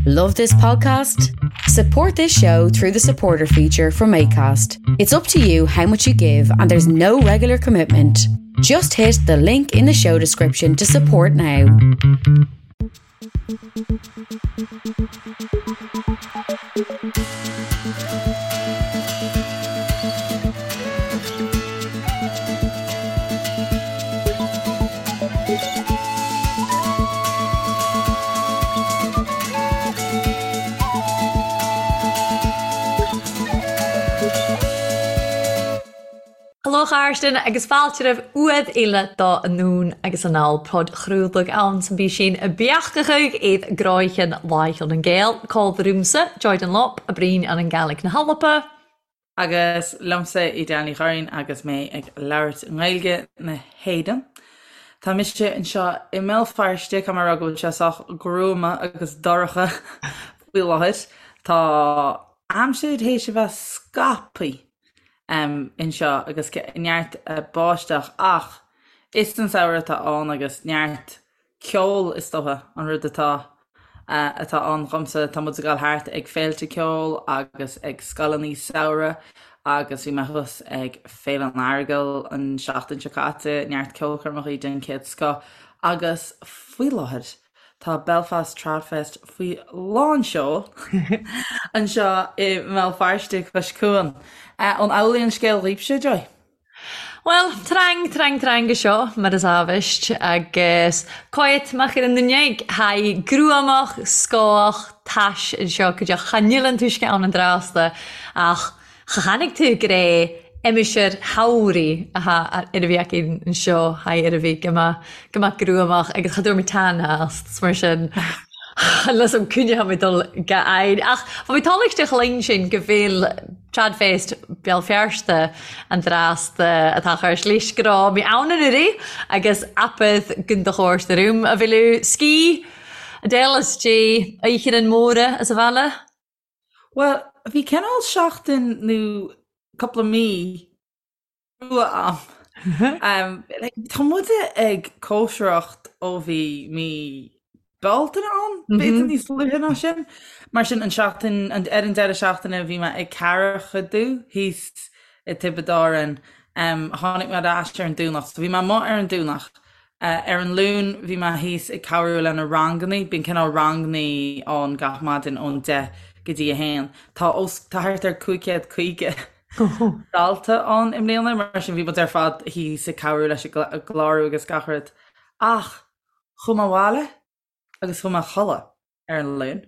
Love this podcast? Support this show through the supporter feature from ACAST. It's up to you how much you give, and there's no regular commitment. Just hit the link in the show description to support now. Hello a chairde agus fáilte roimh uaid eile do Anonn agus Anall podchraoladh ann san bpísín beachtachaidh iad gráicheann Láicheann an Gael, Call the Roomsa, Joy Dunlop, a Breen an an Gaelic na hAlba. Agus liomsa Edel Ní Churraoin agus mé ag labhairt i nGaeilge na hÉireann. Tá mise anseo i mBéal Feirste, caithfidh mé a rá go bhfuil sé sách gruama agus dorcha faoi láthair. Tá aimsir théis a bheith scaipthe anseo agus neart báisteach ach is an samhradh atá ann agus neart ceol is dócha an rud atá atá ann dhomsa. Tá muid ag dul thart ag féilte ceoil agus ag scoileanna samhraidh agus bhí mé thuas ag Féile an Earagail an seachtain seo caite, neart ceolchoirmeacha den chéad scoth agus faoi láthair tá Belfast Tradfest faoi lán seoil anseo i mBéal Feirste cois cuain. An amhlaidh an scéal dhaoibhse, Joy? Bhuel, trang, trang, trang seo, mar is amhaist, agus cáit mac ar an nduine thaidh gruamach, scáthach, tais anseo go dteach cha níl an t-uisce ann an drásta ach cha tháinig tú go raibh aimsir shamhraidh atá ar a bhí aici anseo thaidh ar a bhí go mbeadh go mbeadh gruamach agus cha dúirt mé tan ast mar sin Unless I'm coinneoidh mé dul go h-air. Ach bhí mé tábhachtach linn sin go bhfuil Tradfest Béal Feirste an drásta atá chur slís go raibh mé ann anuraidh agus apad gun do chóir do rúm a bhfuil ski Adele is Dé oíche an mhóra as a bhaile. Bhuel, bhí cineál seachtain nó cúpla mí crua a'm. Tá muide ag cóisireacht ó bhí mí Bealtaine ann, b'fhéidir níos luaithe ná sin. Mar sin, an seachtain, ar an deireadh seachtaine bhí mé ag Ceathrachaidú thíos i Tiobraid Árann. Tháinig mé ar ais ar an Domhnach, so bhí mé amuigh ar an Domhnach. Ar an Luan bhí mé thíos ag cabhrú le na rangannaí, bíonn cineál rangannaí ann gach maidin ón 10 go dtí 1. Tá os, tá thart ar 550 dalta ann i mbliana, mar sin bhí muid ar fad thíos ag cabhrú leis an gclárú agus gach rud. Ach chuaigh mé abhaile agus chuaigh mé a chodladh ar an Luan.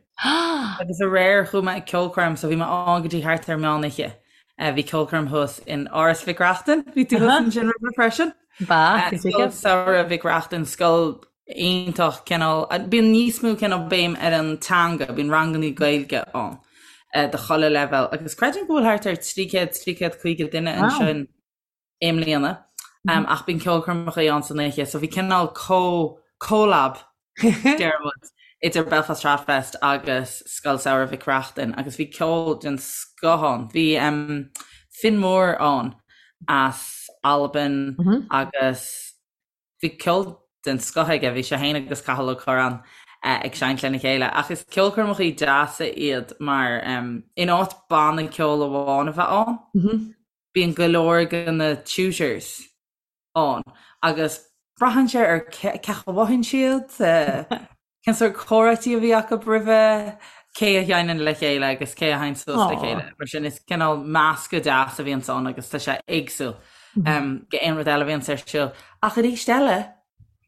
Agus aréir chuaigh mé ag ceolchoirm so bhí mé ann go dtí thart ar meán oíche. Bhí ceolchoirm thuas in Áras Mhic Reachtain, bhí tú thuas ansin roimhe freisin. Ba, Scoil Samhraidh Mhic Reachtain, scoil iontach cineál, bíonn níos mó cineál béim ar an teanga, bíonn rangannaí Gaeilge ann do chuile leibhéal agus creidim go bhfuil thart ar 300, 350 duine ansin i mbliana ach bíonn ceolchoirmeacha ann san oíche so bhí cineál co collab deir muid idir Belfast Tradfest agus Scoil Samhraidh Mhic Reachtain agus bhí ceol den scoth ann. Bhí Finn Moore ann as Albain agus Bhí ceol den scoth aige, bhí sé féin agus Cathal Ó Curráin ag seinnt lena chéile. Ach is ceolchoirmeacha deasa iad mar in áit banna ceoil amháin a bheith ann, bíonn go leor de na tutors ann agus braitheann sé ar cé chaoi a mhothaíonn siad, Cén sórt comhráití a bhí acu roimhe, cé a sheinneann le chéile agus cé a théann suas le chéile. Mar sin is cineál meascadh deas a bhíonns ann agus tá sé éagsúil go aon rud eile a bhíonns ar siúl. Ach arís eile,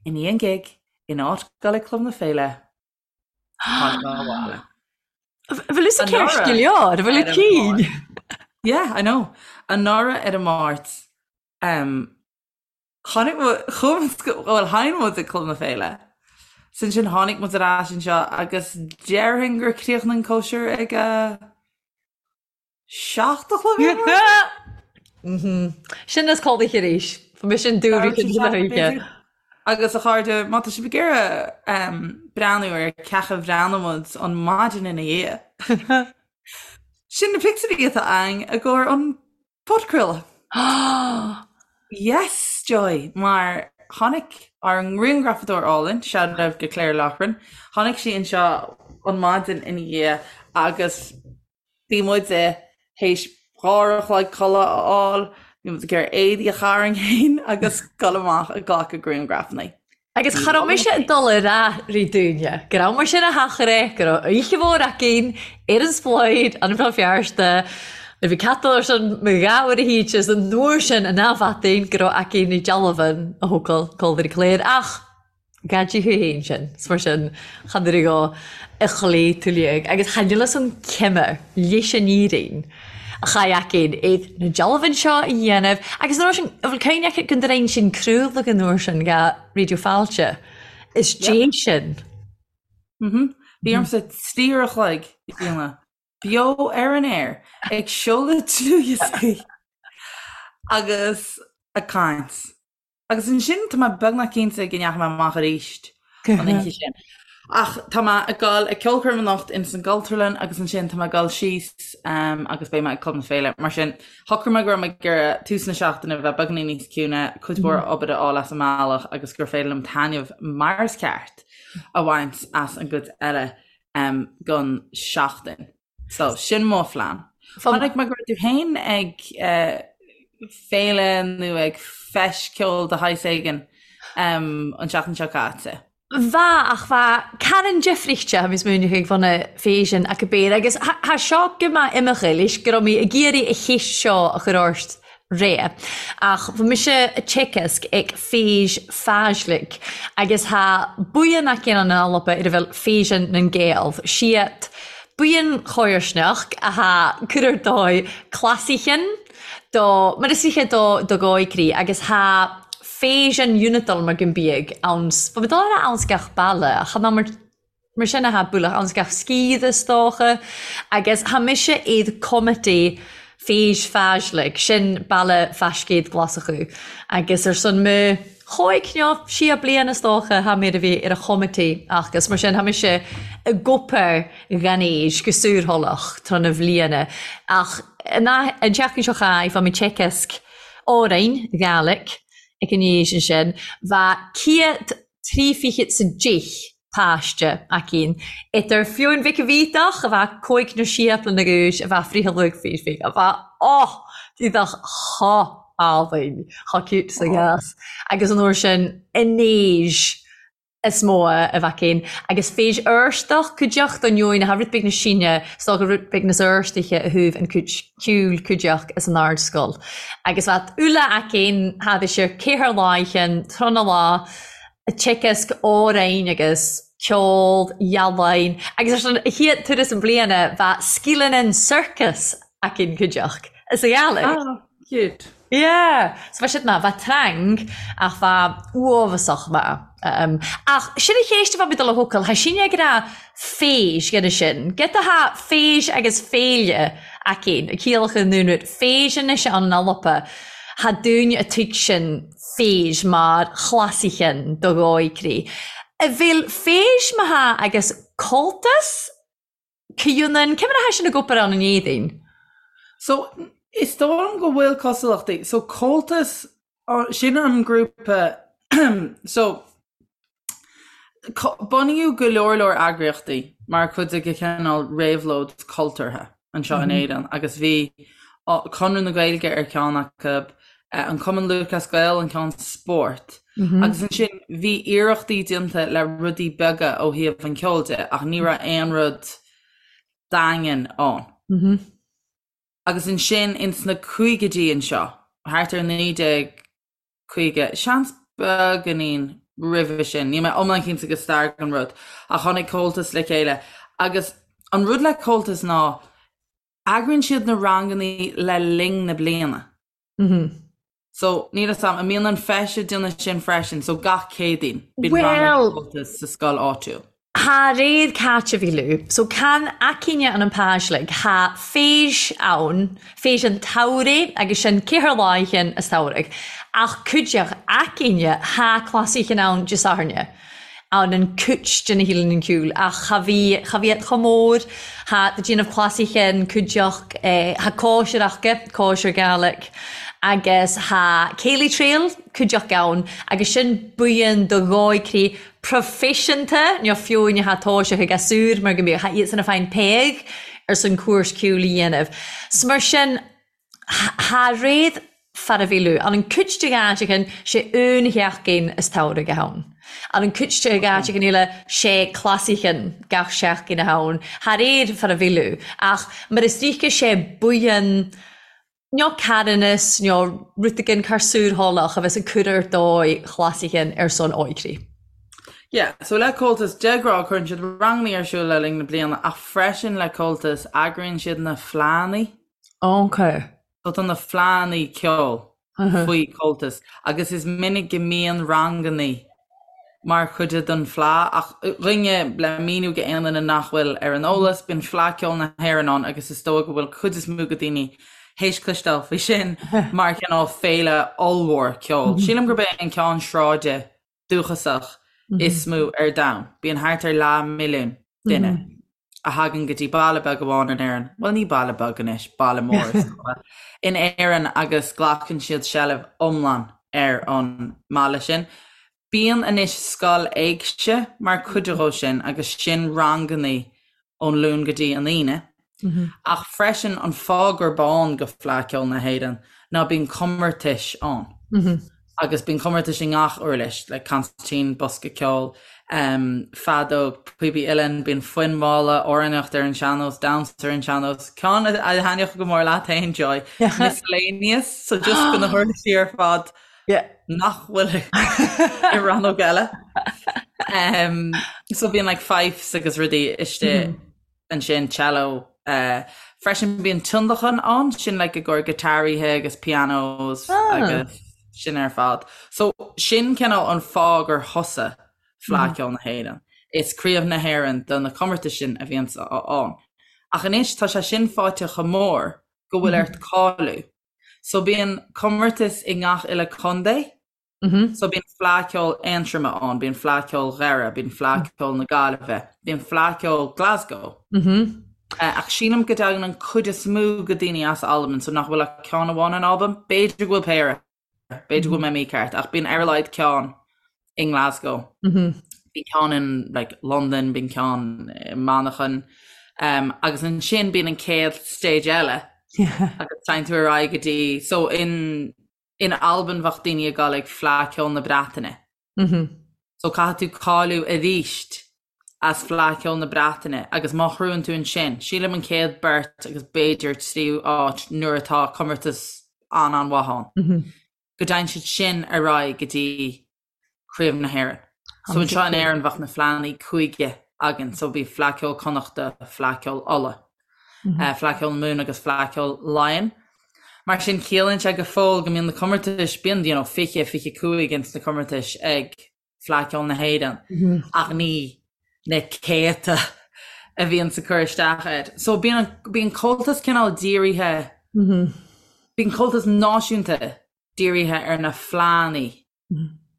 i ndiaidh an gig, in áit dul ag Club na Féile, tháinig mé abhaile. Bhfuil fhios ag ceist go leor, bhfuil a cinn? Yeah, I know. Anuraidh ar an Máirt, Tháinig muid, chuaigh muid go, bhuel, sheinn muid ag Club na Féile. So ansin tháinig muid ar ais anseo agus déarfainn gur chríochnaigh an cóisir ag a 7 a chlog ar maidin. Sin is codladh arís. Bhí mise in dúrud na hoíche. Agus a chairde, má tá sibh ag iarraidh breathnú ar cén chaoi a bhreathnaigh muid an maidin ina dhiaidh, sin na pictiúirí atá againn i gcomhair an Podchraoladh. Yes, Joy! Mar tháinig ár ngrianghrafadóir álainn, shout out go Claire Loughran, tháinig sí anseo an maidin ina dhiaidh agus bhí muid théis 2 uair a chloig codladh a fháil, bhí muid ag iarraidh éadaí a tharraing féin agus dul amach ag glacadh grianghrafanna. Agus cha raibh mise ag dul a rá ri daoine go raibh mar sin a theachaire, go raibh oíche mhór againn ar an splaoid, an Bhéal Feirste, nuair bhí cat ar son mo gha uair a thíte is an uair sin an athbheathain go raibh againn i dealbh a thógáil Calvary Clare ach Gad í thú fhéin sin, 's mar sin chan ar go a chloí tú liag agus chan fhuil fhios an cime leis an fhírinne a chaith againn iad na dealbhan seo a dhéanamh agus an uair sin an bhfuil cuimhne agat go ndrein sin craoladh an uair sin go Raidió Fáilte is dé sin. Mhm. Bhí ormsa 3 uair a chloig a dhéanamh beo ar an aer ag seoladh dlúthdhioscaí agus ag caint. Agus ansin tá mé beagnach cinnte go ndeachaigh mé amach arís an oíche sin. Ach tá mé ag dul ag ceolchoirm anocht ins an gCultúrlann agus ansin tá mé ag dul síos agus beidh mé ag Club na Féile. Mar sin, shocraigh mé go raibh mé ag iarraidh tús na seachtaine a bheith beagáinín níos ciúine, cuid mhór obair a fháil as an mbealach agus gur féidir liom taitneamh mar is ceart a bhaint as an gcuid eile den seachtain. So, sin mo phlean. Chonaic mé go raibh tú féin ag féile nó ag feis ceoil de shaghas éigin an tseachtain seo caite. Bha, ach bha caran difraichte tha mi smaoineachadh ag bhun fèisean ac a bèir agus tha seo gu math imeachadh leis gu robh mi ag iarraidh a cheist seo a chur ort ré. Ach bha mise a' teagasg ag Fèis Fàislig agus tha buíon againn ann in Alba ar a bheil Fèisean nan Gàidheal. Siad buíon chomharsnach a tha cur ar dóigh clasaichean do, mar is oíche do do ghóigrí agus tha Fèisean Unitol mar gun biadh ann, bha mi dol a ràdh anns gach baile ach chan mar Mar sin atá bualadh anns gach sciath is dócha, agus tha mise id committee Fèis Fàislig, sin Baile Faiscéid Glaschú, agus ar son mo chóig nó sia bliain is dócha tha mé ar a bhí ar a chommittee agus mar sin tha mise ag obair dhan fhèis go saorthoileach tráth na bhliana ach an tseachtain seo chaith bha mi teagasc òrain Ghàidhlig ag an fhèis ansin bha 103 fichead 's a deich páiste againn, idir Fionn Mhic a' Bhídeach, a bheadh cóig nó sé bliana d'aois, a bheadh fríth luath faoi faoi, a bheadh, oh, bhíodh chomh álainn, chomh cute sa gcás, agus an uair sin, an aois is mó a bheadh againn, agus fèis Fheirsteach, cuideachta an Eoin, atá rud beag na sine, is dócha rud beag na Fheirstiche a thabh an cuid ceoil cuideachta is an Ardscoil. Agus bheadh uile againn, thad is ar ceathair láicheann, tráthnóna lá, teagasc òrain agus ceol, ealaín agus ar son a chéad turas an bliana bha sgileannan sorcas againn cuideachd is a Ghàidhlig. Ah, cute. Yeah! So bha siad maith, bha trang ach bha uabhasach maith. Um, ach sin a cheist a bha mi dol a thocail, tha sinne ag ràdh fèis dhe'n sin. Giota tha fèis agus féile againn, a ciallachadh an dún rud, fèis anois ann in Alba, tha daoine a tuigsean fèis mar chlasaichean do dhóigrí. A bhfuil fèis ma tha agus Comhaltas comhionann, cé mar atá sin ag obair ann in Éirinn? So, is dóigh liom go bhfuil cosúlachtaí. So, Comhaltas, sin an grúpa, so, Bunaíodh go leor leor eagraíochtaí mar chuid de chineál réabhlóid cultúrtha anseo in Éirinn agus bhí Conradh na Gaeilge ar cheann acu, an Cumann Lúthchleas Gael an ceann spóirt agus ansin bhí iarrachtaí déanta le rudaí beaga ó thaobh an cheoil de ach ní raibh aon rud daingean ann. Agus ansin ins na caogaidí anseo, thart ar 19 50, seans beagáinín roimhe sin, níl mé iomlán cinnte de stair an rud, ach tháinig Comhaltas le chéile agus an rud le Comhaltas ná eagraíonn siad na rangannaí le linn na bliana. So, níl 'fhios a'm, an mbíonn an Feis ag déanamh sin freisin, so gach Céadaoin bíonn rang ag Comhaltas sa scoil áitiúil. Tha réad caite bhí lú. So can againne ann an Pàislig tha fèis ann, fèis an tsamhraidh agus sin ceathair láichean as samhradh. Ach cuideachd againne tha clasaichean ann Dè Sathairne ann an cuid de na hEilean an Ceoil ach cha bhí cha bhí iad chomh mór. Tha do déanamh clasaichean cuideachd eh tha cóisir aca, cóisir Gàidhlig agus tha Ceilidh Trail cuideachd ann agus sin buíon do dhóigh. proifisiúnta nó fiú ní tha toiseach ag gasúir mar go mbíodh tha iadsan a' fàghain pàigh air son cúrs ceoil a dhéanamh. 'S mar sin tha réad fara-mhíliú. Ann an cuid de dh'áiteachan sé aon sheachdain as tsamhraidh a th' ann. Ann an cuid de dh'áiteachan eile sé clasaichean gach seachdain a th' ann. Tha réad fara-mhíliú. Ach mar is ríce sé buidhean nó carthanas nó rud éigin char súrtháileach a bheas ag cur ar dóigh chlasaichean ar son óigrí. Yeah, so le Comhaltas, de ghnáth cuireann siad rangannaí ar siúl le linn na bliana ach freisin le Comhaltas eagraíonn siad na fleánnaí. Ok. So tá na fleánnaí ceoil faoi Comhaltas agus is minic go mbíonn rangannaí mar chuid den fleá ach dhuine le míniú go aon duine nach bhfuil ar an eolas, bíonn Fleá Ceoil na hÉireann ann agus is dóigh go bhfuil cuid is mó go daoine théis cloisteáil faoi sin mar chineál féile ollmhór ceoil. Sílim gurb é an ceann sráide dúchasach is mó ar domhan. Bíonn thart ar leath milliún duine a thagann go dtí baile beag amháin in Éirinn, bhuel ní baile beag anois, baile mór is dócha, in Éirinn agus glacann siad seilbh iomlán ar an mbaile sin. Bíonn anois scoil éigse mar chuid dhó sin agus sin rangannaí ón Luan go dtí an Aoine. Ach freisin an fáth gurb ann go Fleadh Ceoil na hÉireann ná bíonn comórtais ann agus bíonn comórtais i ngach uirlis, like consairtín, bosca ceoil, feadóg, píopaí uilleann, bíonn foinn mhalla, amhránaíocht ar an sean-nós, damhsa ar an sean-nós, ceann a thaitneodh go mór leat féin, Joy, miscellaneous, so just go na huirlisí ar fad nach bhfuil i rannóg eile. So bíonn like fifes agus rudaí istigh. ansin cello freisin bíonn tionlacan ann sin like i gcomhair giotáraithe agus pianos agus sin ar fad. So sin cineál an fáth gur thosaigh Fleadh Ceoil na hÉireann. Is craobh na hÉireann do na comórtais sin a bhíonns ann. Ach anois tá sé sin fáite chomh mór go bhfuil ort cáiliú. So bíonn comórtas i ngach uile contae So bíonn Fleadh Ceoil Aontroma ann, bíonn Fleadh Ceoil Dhoire, bíonn Fleadh Ceoil na Gaillimhe, bíonn Fleadh Ceoil Glasgow. Ach sílim go dtagann an cuid is mó go daoine as Albain, so nach bhfuil ach ceann amháin in Albain. B'fhéidir go bhfuil péire, b'fhéidir go bhfuil mé mícheart, ach bíonn ar a laghad ceann i nGlasgow. Bíonn ceann in like Londain, bíonn ceann i Manchain, agus ansin bíonn an chéad stage eile agus téann tú ar aghaidh go dtí, so in In Albain bheadh daoine ag dul ag Fleadh Ceoil na Breataine. So caithfidh tú cáiliú aríst as Fleadh Ceoil na Breataine agus má ghnóthaíonn tú ansin, sílim an chéad beirt agus b'fhéidir tríú áit nuair atá comórtas an-an-mhaith ann, go dtéann siad sin ar aghaidh go dtí Craobh na hÉireann. So anseo in Éirinn bheadh na fleánnaí cúige againn, so bhí Fleadh Ceoil Connachta, Fleadh Ceoil Uladh, Fleadh Ceoil na Mumhan agus Fleadh Ceoil Laighean. Mar sin ciallaíonn sé go fóill go mbíonn na comórtais, bíonn you know 20, 25 ins na comórtais ag Fleadh Ceoil na hÉireann ach ní na céadta a bhíonn ag cur isteach air. So bíonn bíonn Comhaltas cineál dírithe, bíonn Comhaltas náisiúnta dírithe ar na fleánnaí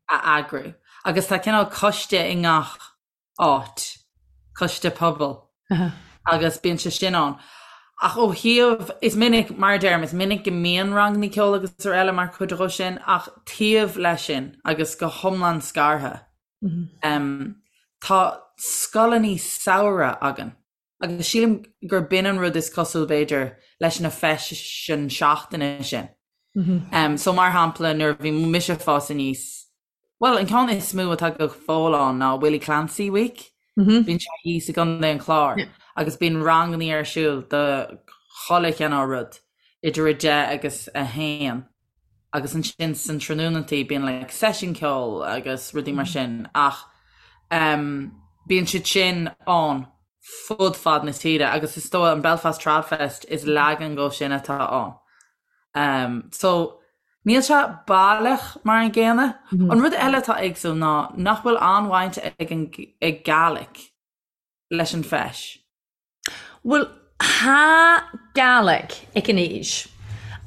a eagrú agus tá cineál coiste i ngach áit, coiste pobail agus bíonn sé sin ann. Ach ó thaobh, is minic, mar a deirim, is minic go mbíonn ranganna ceoil agus araile mar chuid dhó sin ach taobh leis sin agus go hiomlán scartha, tá scoileanna samhraidh againn. Agus sílim gur b'in an rud is cosúil, b'fhéidir, leis na feiseanna seachtaine sin. So mar shampla, nuair a bhí mise ag fás aníos, bhuel, an ceann is mó atá go fóill ann ná Willie Clancy Week. Bíonn sé thíos i gContae an Chláir agus bíonn rangannaí ar siúl do chuile chineál rud idir 10 agus 1. Agus ansin san tráthnónantaí bíonn like seisiún ceoil agus rudaí mar sin ach em bíonn siad sin ann fud fad na tíre agus is dóigh an Belfast Tradfest is leagan dhó sin atá ann. Em so níl sé baileach mar an gcéanna. An rud eile atá éagsúil ná nach bhfuil an-bhaint ag an ag Gaelic leis an bhfeis. Bhuel, tha Gàidhlig aig an fheis,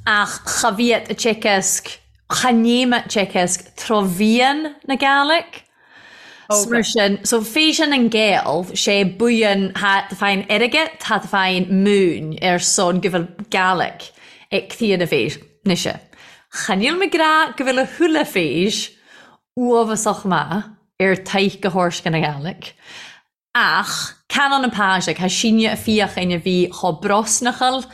ach cha bhíod a' teagasg, cha ním a' teagasg trò mheadhan na Gàidhlig. 'S mar sin, so Fèisean nan Gàidheal, sé buidhean tha tú fàghain airgead, tha tú fàghain mùin air son gu bheil Gàidhlig aig caoine mise. Cha níl mi ag ràdh gu bheil a thuilleadh fèis uabhasach math. ar taith go hOrsca na Gàidhlig. Ach can ann an Pàislig, tha sinne a' feuchainn a bhith cho brosnachal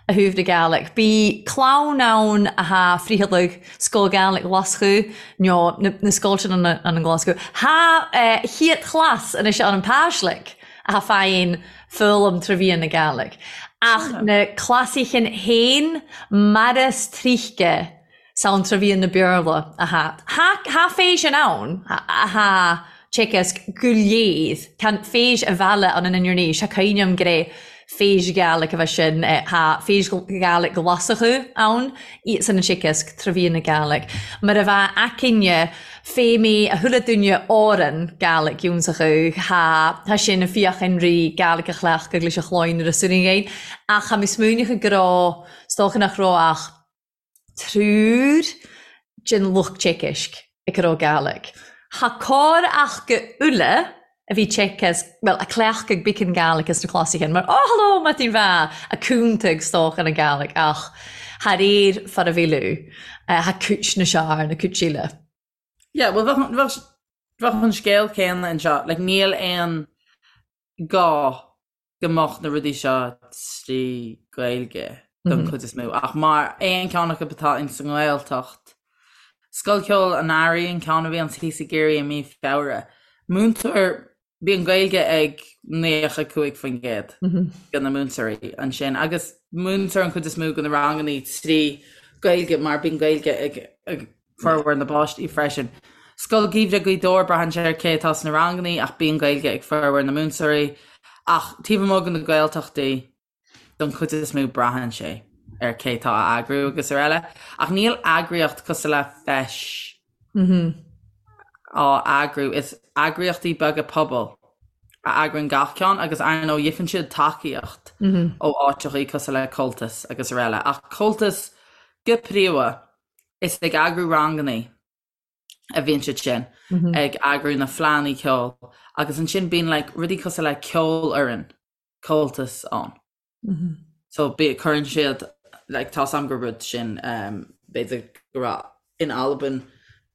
a thaobh na Gàidhlig. Bhi clann ann a tha friothaladh Sgoil Gàidhlig Ghlaschu, no na sgoiltean ann an Glaschu. Tha chiat chlas anois ann an Pàislig a tha fàghain foghlam tra mheadhan na Gàidhlig. Ach na clasaichan fhèin maras trithge 's ann tra mheadhan na Beurla a tha. Tha fèisean ann a tha teagasg gu leidh, can fèis a mhealladh ann an Inbhir Nis, tha cuimhne a'm gur e fèis Gàidhlig a bha sin, tha fèis Ghàidhlig Ghlaschú ann, iadsan an teagasg tra mheadhan na Gàidhlig. Mar a bha aicinne fé mé a chuile duine òran Gàidhlig ionnsacha, tha tha sin a feuchainn ri Gàidhlig a chleachtadh leis a chloinn ar a suiringhein, ach tha mi smaoineachadh gur raibh, 's dócha nach raibh ach triúr den lucht teagaisc ag a raibh Gàidhlig. Tha cor ach go uile a bhí teagasc, bhuel, a cleachtadh beagan Gàidhlig as na clasaichan, mar oh hello Martin Bha, a cúntag 's dócha na Gàidhlig ach thar air far a bhí tha cúit na sear na cúit eile. Yeah, well bheadh bheadh an scéal céanna anseo, like níl aon gá go mbeadh na rudaí seo trí Ghaeilge don chuid is mó, ach mar aon ceann acu atá ins an nGaeltacht, Scoil Cheoil an Earraigh an ceann a bhíonn thíos i gCiarraí i mí Feabhra, múinteoir, bíonn Gaeilge ag 95% de na múinteoirí ansin agus múintear an chuid is mó de na ranganna trí Ghaeilge mar bíonn Gaeilge ag formhór na bpáistí freisin. Scoil Gheimhridh Ghaoth Dobhair, braitheann sé ar cé atá sna ranganna ach bíonn Gaeilge ag formhór na múinteoirí. Ach taobh amuigh de na Gaeltachtaí, don chuid is mó braitheann sé ar cé atá á eagrú agus araile. Ach níl eagraíocht cosúil le Feis á eagrú, is eagraíochtaí beaga pobail a eagraíonn gach ceann agus ar ndóigh gheibheann siad tacaíocht ó áiteachaí cosúil le Comhaltas agus araile. Ach Comhaltas go príomha Is ag eagrú rangannaí a bhíonn siad sin, ag eagrú na fleánnaí ceoil agus ansin bíonn like rudaí cosúil le ceolfhoireann Comhaltas ann. So bí, cuireann siad like tá's a'm gur rud sin um, b'fhéidir go raibh in Albain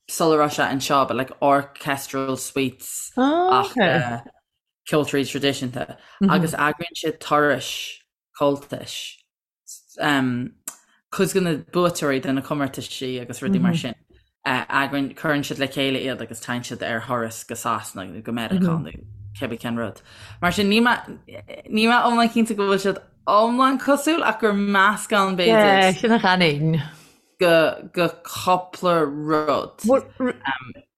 sula raibh sé anseo but like orchestral suites Oh, ach okay. uh, ceoltóirí traidisiúnta agus eagraíonn siad turais Comhaltais cuid de na buaiteoirí de na comórtaisí agus rudaí mar sin, eagraíonn, cuireann siad le chéile iad agus téann siad ar thuras go Sasana nó go Meiriceá nó cibé cén rud. Mar sin níl mé, níl mé iomlán cinnte go bhfuil siad iomlán cosúil ach gur meascán b'fhéidir. Sin a chanainn. Go, go cúpla rud.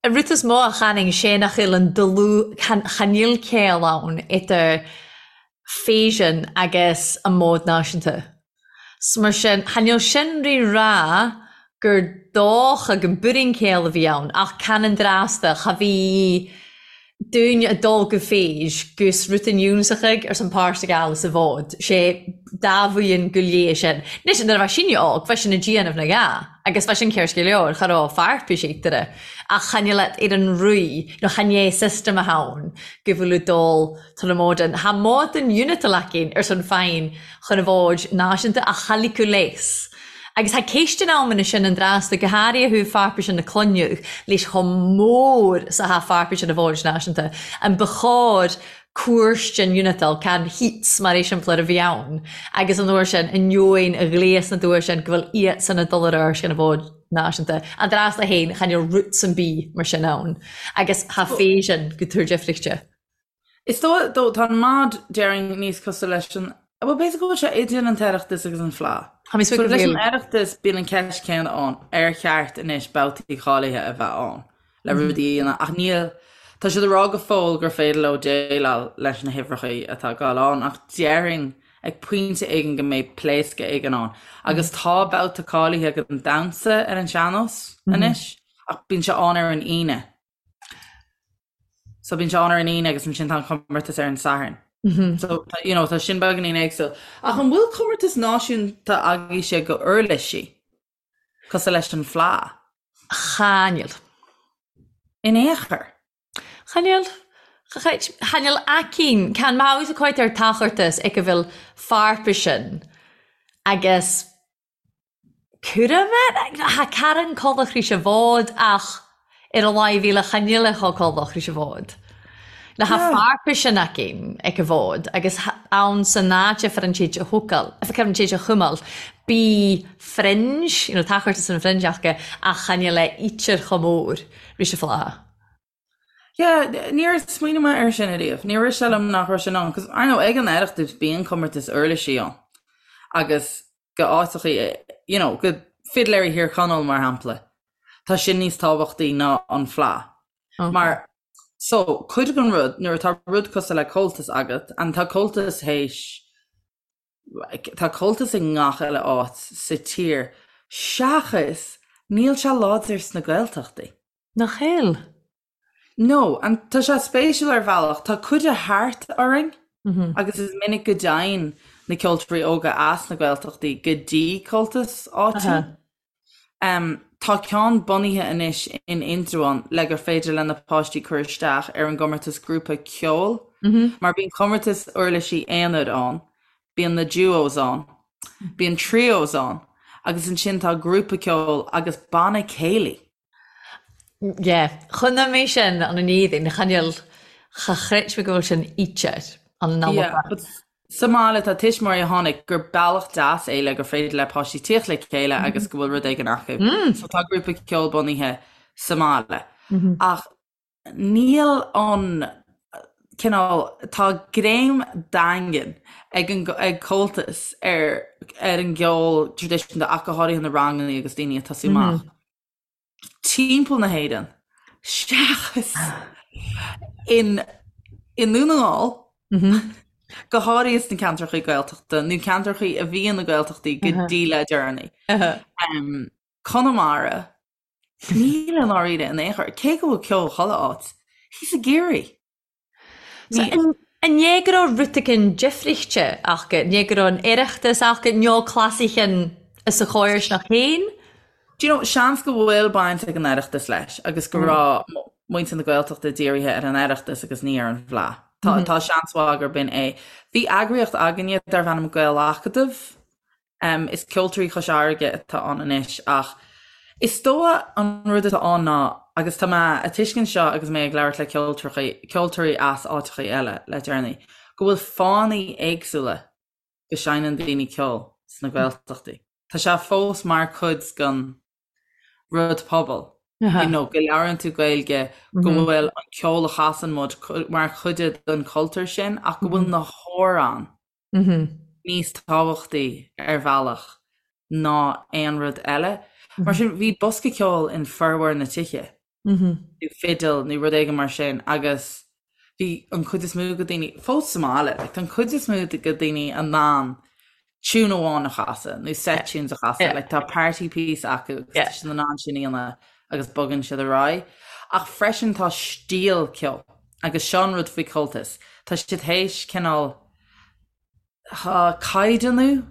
An rud is mó a chanainn sé nach bhfuil an dlúth, chan fhuil ceol ann idir fèisean agus an mòd nàiseanta. 'S mar sin, chan eil sin ri ràdh gur dòcha gun buirean-chéill a bhí ann, ach can an dràsta, cha bhí daoine a' dol gu fèis gus rudan ionnsachaig ars an pàrtaig eile sa bhòd, sé dà bhuidhean gu léith sin. Anois, nuair a bha sinne òg, bha sin a' dianamh na gha, agus bha sin ceart gu leor, cha robh fairpis eatarra, ach chan eil at ar an ruith, nó chan é system a tha ann, gu bhfuil a' dol Tá na móidean, Thá móidean unit leacain ar son feidhm chun a bhfóid náisiúnta a chailleadh léas. Agus thá céistean ann ina sin an dtrásta, go háirithe thaobh pharpaise na cloineadh leis chomh mór 's athá pharpaise na bhfóid náisiúnta. An ba chóir cúirt den unitail, can heats mar eiseamplar a bhí ann, agus an uair sin, ainneoin a ghléas na dtuair sin go bhfuil iadsan ag dul ar ais chun a bhfóid náisiúnta. An dtrásta féin, chan eil roots an bith mar sin ann. Agus thá fèisean gu tuar deifrichte. Is dóigh, dó, tá an mod, déarfainn, níos cosúil leis an, bhuel, b'fhéidir go bhfuil sé idir an tOireachtas agus an Fleadh. Tá mé So suite go leis an bhfuil. Oireachtas, bíonn an ceist céanna ann, ar cheart anois babhtaí cáilithe a bheith ann le rudaí a dhéanamh, ach níl, tá siad ag rá go fóill gur féidir leo déileáil leis na huimhreacha atá ag gabháil ann, ach déarfainn ag pointe éigin go mbeidh pléascadh éigin ann. Agus tá babhta cáilithe don damhsa ar an sean-nós anois, ach bíonn sé ann ar an Aoine. So bíonn sé ann ar an Aoine agus ansin tá an comórtas ar an Satharn. So you know, tá sin beagáinín éagsúil. Ach an bhfuil comórtas náisiúnta agaibhse go uirlisí cosúil leis an Fleadh? Chan eil. In aon chor. Chan eil. Chan eil aicinn. Can mhaith a cuid ar tachortas ag a bhfuil farpaisin agus Cúram air? Tha Karen Collach rìs a bhod ach Ar a laghad bhí le choinneáil le chomh ris an bhfód. Le ha fearpais an aicinn ag an bhfód agus ann san áit a an téid a thucail, a an téid a chumail, bí fringe, you know, tá chuirtear san fringe acu ach choinneáil le ítear chomh mór ris an fleadh. Yeah, níor smaoinigh mé air sin ariamh. Níor rith sé liom nach raibh sin ann, 'cause I know ag an Oireachtas bíonn comórtas uirlisí ann agus go áiteachaí, you know, go Fidléirí Thír Chonaill mar shampla, tá sin níos tábhachtaí ná an Fleadh. Okay. Mar, so, cuid den rud, nuair atá rud cosúil le Comhaltas agat, and tá Comhaltas théis, tá Comhaltas i ngach uile áit sa tír, seachas níl sé láidir sna Gaeltachtaí. Nach eil? No, and tá sé spéisiúil ar bhealach, tá cuid de thart orainn agus is minic go dtéann na ceoltóirí óga as na Gaeltachtaí go dtí Comhaltas áitiúil. Tá ceann bunaithe anois in Indreabhán le gur féidir le na páistí cur isteach ar an gcomórtas grúpa ceoil, mar bíonn comórtas uirlisí aonair ann, bíonn na duos ann, bíonn trios ann agus ansin tá grúpa ceoil agus banna céilí. Yeah, chonaic mé sin an an éadain, chan fheil, cha chreid mé go bhfuil sin íte an an Yeah, but sa mbaile tá tuismitheoirí a chonaic gur bealach deas é le gur féidir le páistí tíocht le chéile agus go bhfuil rud éigin acu. So tá grúpa ceoil bunaithe sa mbaile. Ach níl an cineál, tá greim daingean ag an ag Comhaltas ar ar an gceol traidisiúnta ach go háirithe na ranganna agus daoine ag tosú amach. timpeall na hÉireann, seachas in i nDún na nGall, go háirithe sna ceantracha Gaeltachta nó ceantracha a bhí ina Gaeltachtaí go dtí le deireanaí. Conamara, níl i ndáiríre in aon chor, cé go bhfuil ceol chuile áit, thíos i gCiarraí. So, an é go raibh rud éigin difrichte acu, an é go raibh an Oireachtas acu, nó clasaichean is a chóir nach féin? Do you know, seans go bhfuil baint ag an Oireachtas leis agus go raibh muintir na Gaeltachta dírithe ar an Oireachtas agus ní ar an bhFleadh. Tá, tá seans mhaith gurb in é. Bhí eagraíocht againne darbh ainm Gael-Acadamh Is Ceoltóirí Chois Fharraige atá ann anois ach is dóigh an rud atá ann ná, agus tá mé a tuiscint seo agus mé ag labhairt le ceoltóirí as áiteachaí eile le deireanaí, go bhfuil fáthanna éagsúla go seinneann daoine ceol sna Gaeltachtaí. Tá sé fós mar chuid den rud pobail, you know, go labhrann tú Gaeilge, go bhfuil an ceol a chasann muid mar chuid den chultúr sin ach go bhfuil na hamhráin níos tábhachtaí ar bhealach ná aon rud eile. Mar sin, bhí bosca ceoil in formhór na tithe, nó fidil nó rud éigin mar sin agus bhí an chuid is mó de daoine, fós sa mbaile, like, tá an chuid is mó de daoine in ann tune amháin a chasadh nó set tunes a chasadh, like, tá party piece acu agus tá siad in ann sin a dhéanamh agus bogann siad ar aghaidh. Ach freisin tá stíl ceoil agus seo an rud faoi Comhaltas, tá siad théis cineál caighdeánú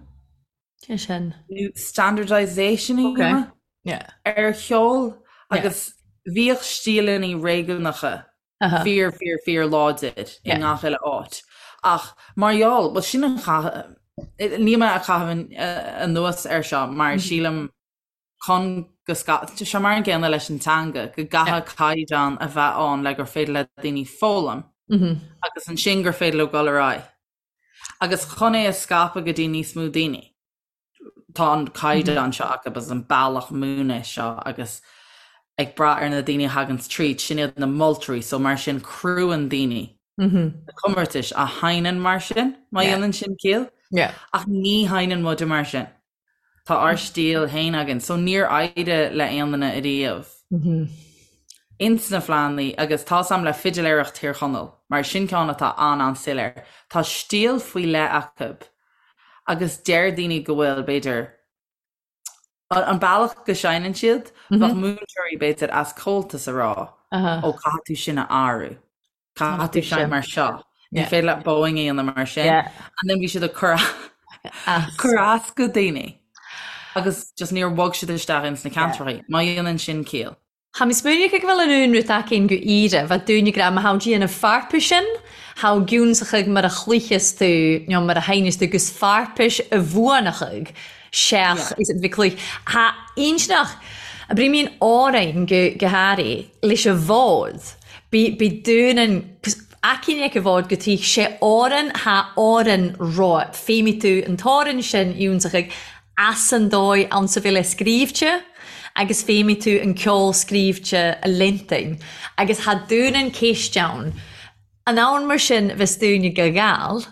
Sé sin. nó standardisation a dhéanamh ar cheol agus bhíodh stíleanna réigiúnacha fíor, fíor, fíor láidir i ngach uile áit. Ach mar gheall, bhuel sin an chath, níl mé ag caitheamh anuas air seo mar sílim chun go scaipfeadh sé mar an gcéanna leis an teanga, go gcaithfidh caighdeán a bheith ann le gur féidir le daoine foghlaim agus ansin gur féidir leo dul ar aghaidh. Agus chun é a scaipeadh go dtí níos mó daoine, tá an caighdeán seo acu agus an bealach múineadh seo agus ag brath ar na daoine a thaganns tríd, sin iad na moltóirí, so mar sin crúann daoine na comórtais a sheinneann mar sin, má dhéanann sin ciall. Ach ní sheinneann muide mar sin. Tá ár stíl féin againn, so níor éirigh le aon duine ariamh ins na Fleadhanna agus tá's a'm le Fidiléireacht Thír Chonaill, mar sin ceann atá an-an-soiléir. Tá stíl faoi leith acu agus deir daoine go bhfuil, b'fhéidir, an bealach go seinneann siad, bheadh múinteoirí, b'fhéidir, as Comhaltas a rá, ó caithfidh tú sin a athrú. Caithfidh tú seinnt mar seo. Ní féidir leat bowing a dhéanamh mar sin. And then bhí siad ag cur cur as go daoine. Agus just níor bhog siad isteach ins na ceantracha. Má dhéanann sin ciall. Tha mi smaoineachadh gu bheil an aon rud againn gu Éire, bheadh dúinn ag ràdh ma tha dèanamh farpais-sean, tha giúnsachaidh mar a chluicheas tú nó mar a sheinneas tú gus farpais a bhuanachadh seach is bhí cluich. Tha inntinneach. Abraímín Árainn go go háirithe leis an bhfód. Bí bí dúnan aicín ag an bhfód go tí sé Árainn thá Árainn romhat. Feidhmigh tú an t-Árainn sin iontach ag as an dóigh ann sa bhfile scríbhte agus feidhmigh tú an ceol scríbhte a liontain agus thá dúnan céist ann. An ann mar sin bheas dúine go Gall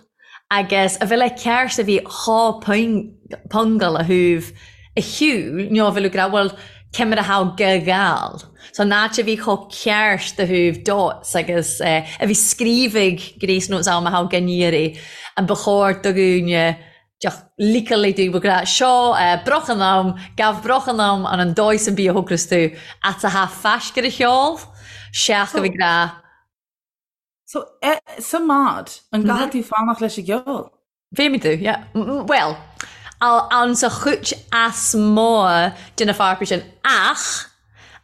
agus a bhfile ceart a bhí dhá phongal a thabh a shiúl nó a bhfuil ag rá bhuel cé mar a thabh go Gall. So an áit a bhí chomh ceart do thabh dots agus a bhí scríobhaidh gréas nó am a thabh gan iarraidh an ba chóir do dhúine deoch liceáil do ag rá seo broch an am, gabh broch an am an an dóigh san bia a thógras tú at a thabh faisc ar a cheol seach a bhí ag rá So, sa mbád, an gcaithfidh tú fanacht leis an gceol? Bheidh tú, yeah. Bhuel, ann sa chuid as mó de na fearpaí sin, ach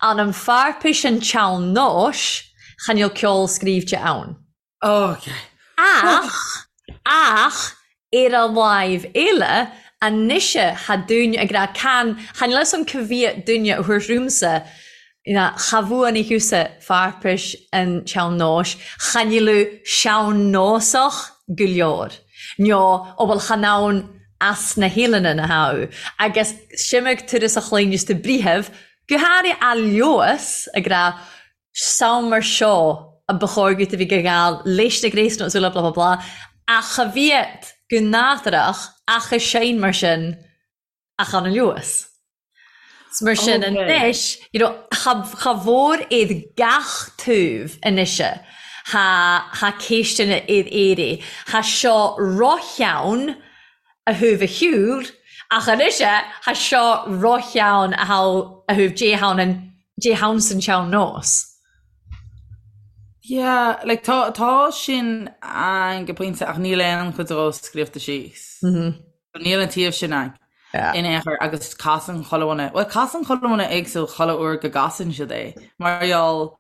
an an fearpaí sin tsean-nóis, chan fhuil ceol scríbhte ann. Ok. Ach, ach, ar a láimh eile, anois tha dúine ag rá can, chan fhuil fhios a'm ca bhfiadh duine a thabhairt romhamsa, cha bhuanaigh thusa fearpais an tsean-nóis, chan fhuil sean-nósach go leor, nó ó bhuel chan ann as na hEileanan a tha agus simig turas a chluineas tú breitheamh, go háirithe a leoas ag rá Sam mar seo a ba chóir dhuit a bhí go gheal leis na gréasáin is uile blah blah blah ach cha bhíod go nádúrach ach a sein mar sin ach an luas. 'S mar sin anois you know cha cha mhór iad gach taobh anois tha tha céisteanna iad éirí tha seo ro-cheann a thabh a shiúl ach anois tha seo ro-cheann a thabh a thabh Dé hann an Dé hann san tsean-nós. Yeah, like tá tá sin ann go pointe ach níl aon chuid dhó scríofa síos. Níl an taobh sin ann in aon chor agus casann chuile dhuine, bhuel casann chuile dhuine éagsúil chuile uair go gcasann siad é mar gheall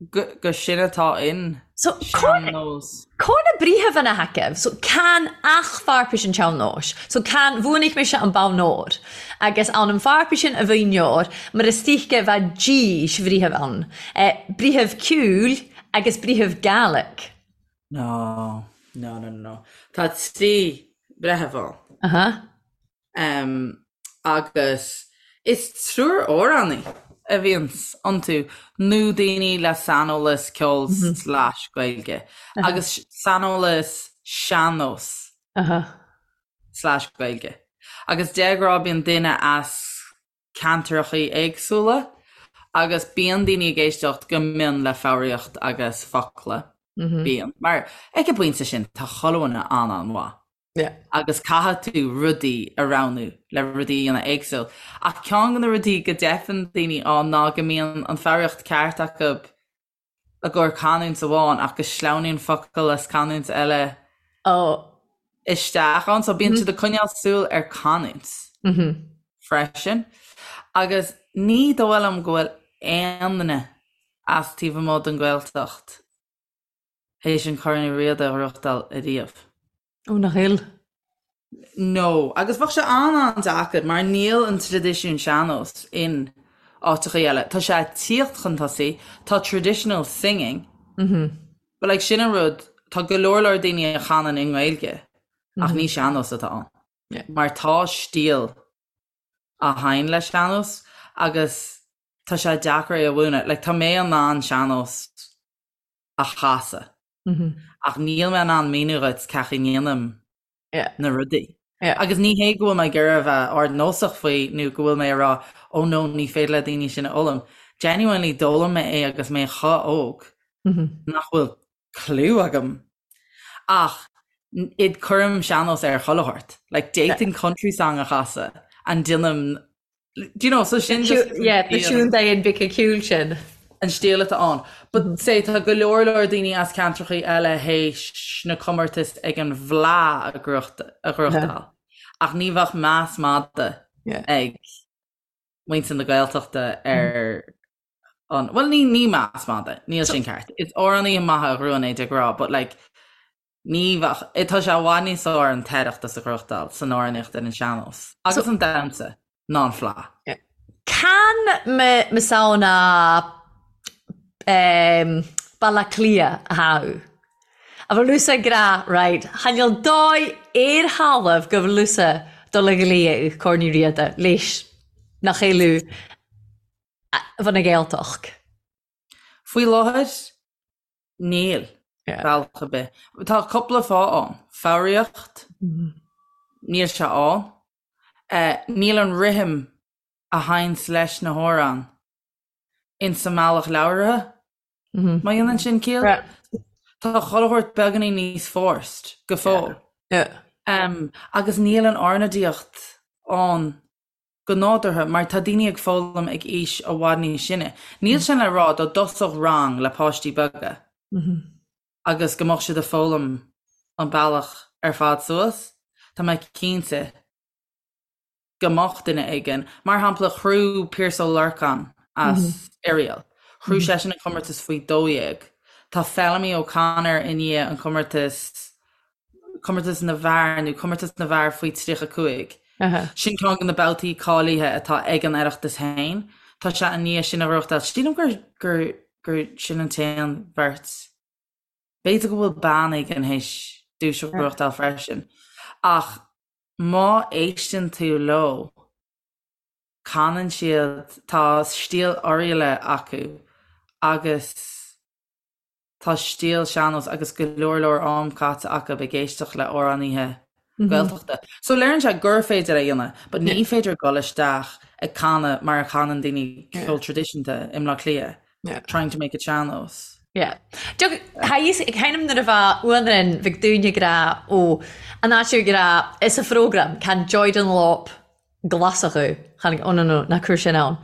gur sin atá in So, sean-nós. Có na breitheamhanna thacaibh? So, can ach fearpais an tsean-nóis. So, can, bhuanaigh mise an bonn óir. Agus ann an fearpais sin a bhonn óir, mar is tuige bheadh dís bhreitheamh ann. Eh, breitheamh ceoil agus breitheamh Gaelic. No, no, no, no. Tá trí bhreitheamh ann. Aha. Um, agus is triúr amhránaí a bhíonns iontu, nó daoine le saineolas ceoil slash Gaeilge, agus saineolas sean-nós slash Gaeilge. Agus de ghnáth bíonn duine as ceantrachaí éagsúla, agus bíonn daoine ag éisteacht go mion le foghraíocht agus focla. Bíonn. Mar ag an bpointe sin, tá chuile dhuine an-an-mhaith. Agus caithfidh tú rudaí a roghnú le rudaí a dhéanamh éagsúil. Ach ceann de na rudaí go dteipeann daoine ann ná go mbíonn an foghraíocht ceart acu i gcomhair canúint amháin ach go sleamhnaíonn focal as canúint eile isteach ann. So bíonn siad ag coinneáil súil ar canúint freisin. Agus ní dóigh liom go bhfuil aon duine as taobh amuigh den Ghaeltacht théis an Corn Uí Riada a ghnóthachtáil ariamh. Ó, nach fhuil? No, agus bheadh sé an-an-deacair mar níl an traidisiún sean-nós in áiteachaí eile. Tá sé ag tíocht chun tosaigh, tá traditional singing, but like sin an rud, tá go leor leor daoine a chanann i nGaeilge ach ní sean-nós atá ann. Mar tá stíl a thagann le sean-nós agus tá sé deacair é a mhúineadh. Like tá mé in ann sean-nós a chasadh. Ach níl mé in ann míniú dhuit cén chaoi a ndéanaim na rudaí. Agus ní hé go bhfuil mé ag iarraidh a bheith ardnósach faoi nó go bhfuil mé ag rá oh no ní féidir le daoine sin a fhoghlaim. Genuinely d'fhoghlaim mé é agus mé chomh óg nach bhfuil clue agam. Ach id cuirim sean-nós ar chuile shórt. Like d'fhéadfainn country song a chasadh and déanaim Do you know, so sin just Yeah, the siún day in big cúl sin. an stíl atá ann. But say tá go leor leor daoine as ceantrachaí eile théis na comórtais ag an bhFleadh a ghnóthachtáil. Ach ní bheadh meas mada ag muintir na Gaeltachta ar an, bhuel ní ní meas mada, níl sin ceart. Is amhránaithe maithe a ghnóthaíonn é de ghnáth, but like Ní bheadh. Tá sé i bhfad níos fearr an tOireachtas a ghnóthachtáil san amhránaíocht ar an sean-nós agus an damhsa ná an Fleadh. Can mo samhna Baile Átha Cliath a tha thu? A bhfuil thusa ag rá, right, chan eil dòigh air thalamh gu bhfuil thusa dol a ghlaodh Corn Uí Riada leis nach eil bha na Gàidhealtachd. Faoi láthair, níl, bealach ar bith. Tá cúpla fáth ann. Foghraíocht, níl sé ann. Níl an rithim a théanns leis na hamhráin insa mbealach labhartha, má dhéanann sin ciall. Tá chuile shórt beagáinín níos forced go fóill. Agus níl an ornáidíocht ann go nádúrtha mar tá daoine ag foghlaim ag aois i bhfad níos sine. Níl sin le rá dá dtosódh rang le páistí beaga agus go mbeadh siad ag foghlaim an bealach ar fad suas, tá mé cinnte go mbeadh duine éigin, mar shampla chruaidh Pearse Ó Lorcáin as Oiriall, chruaidh seisean an comórtas faoi 12. Tá Feilimí O'Connor i ndiaidh an comórtas, comórtas na bhfear nó comórtas na bhfear faoi 35. Sin ceann de na babhtaí cáilithe atá ag an Oireachtas féin. Tá sé i ndiaidh sin a ghnóthachtáil. Sílim gur, gur, gur sin an t-aon bheirt. B'fhéidir go bhfuil bean éigin théis duais a ghnóthachtáil freisin. Ach má éisteann tú leo, canann siad, tá stíl Oirialla acu agus tá stíl sean-nós agus go leor leor am caite acu ag éisteacht le amhránaithe Gaeltachta. So léiríonn sé gur féidir é a dhéanamh, but ní féidir dul isteach ag canadh mar a chanann daoine ceol traidisiúnta i mBleá Cliath. Trying to make it sean-nós. Yeah. Ag nuair a bha uanrin bhig dúine ag rá ó an áit ag rá is a phrógram can Joy Dunlop glasach chan oh no no ná cuir sin ann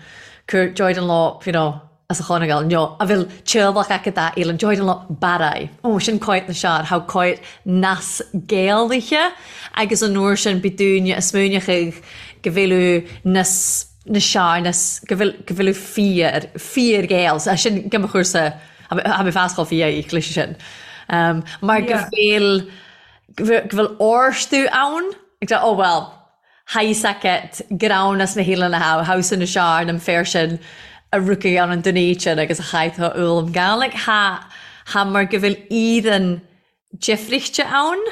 cuir Joy Dunlop you know as a Chonaill no a bhfuil teaghlach acu dá fhílann Joy Dunlop Barraí oh sin coit na sear how coit nas Gaeilge agus an uair sin bí dúine a smaoineochaidh go bhféileadh nas na searnas go bhfuil go bhfuil fíor fíor Ghael so sin go mo chúrsa tha mi fas chomh fia leis sin um, mar go bhfuil go bhfuil orstú ann ag oh well tha fhios agat greann as na hEilean a tha thomhas na searn an féar sin a rucaigh ann an duine agus a chaith tá ulam Gaelic tha tha mar go bhfuil iad difrichte ann.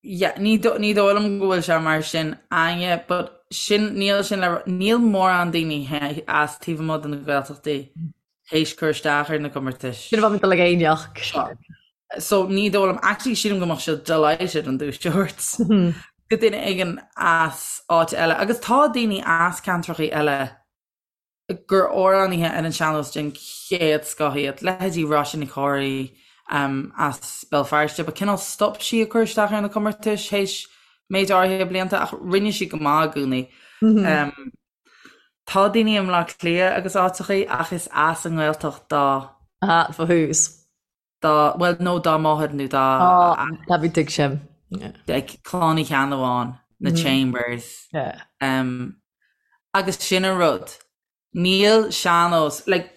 Yeah, ní ní dóigh liom go bhfuil sé mar sin Áine, but sin níl sin le níl mórán daoine as taobh amuigh de na Gaeltachtaí théis cur isteach ar na comórtais. Sin a bheadh dul ag éineacht. So ní dóigh liom, actually sílim go mbeadh siad delighted an duais a thabhairt go duine éigin as áit eile. Agus tá daoine as ceantrachaí eile gur amhránaithe ar an sean-nós den chéad scoth iad, leithéidí Róisín Nic Chomhraí as Béal Feirste, but cineál stop sí ag cur isteach ar na comórtais théis méid áirithe blianta ach rinne sí go maith i gcónaí. Tá daoine i mBleá Cliath agus áiteachaí ach is as an nGaeltacht dá. Aha, fo thús. dá, bhuel, nó dá máthair nó dá. Á, tá bhí tuig sin. Like, Clann Uí Cheannabháin, na Chambers. Yeah. Um, agus sin an rud. Níl sean-nós, like,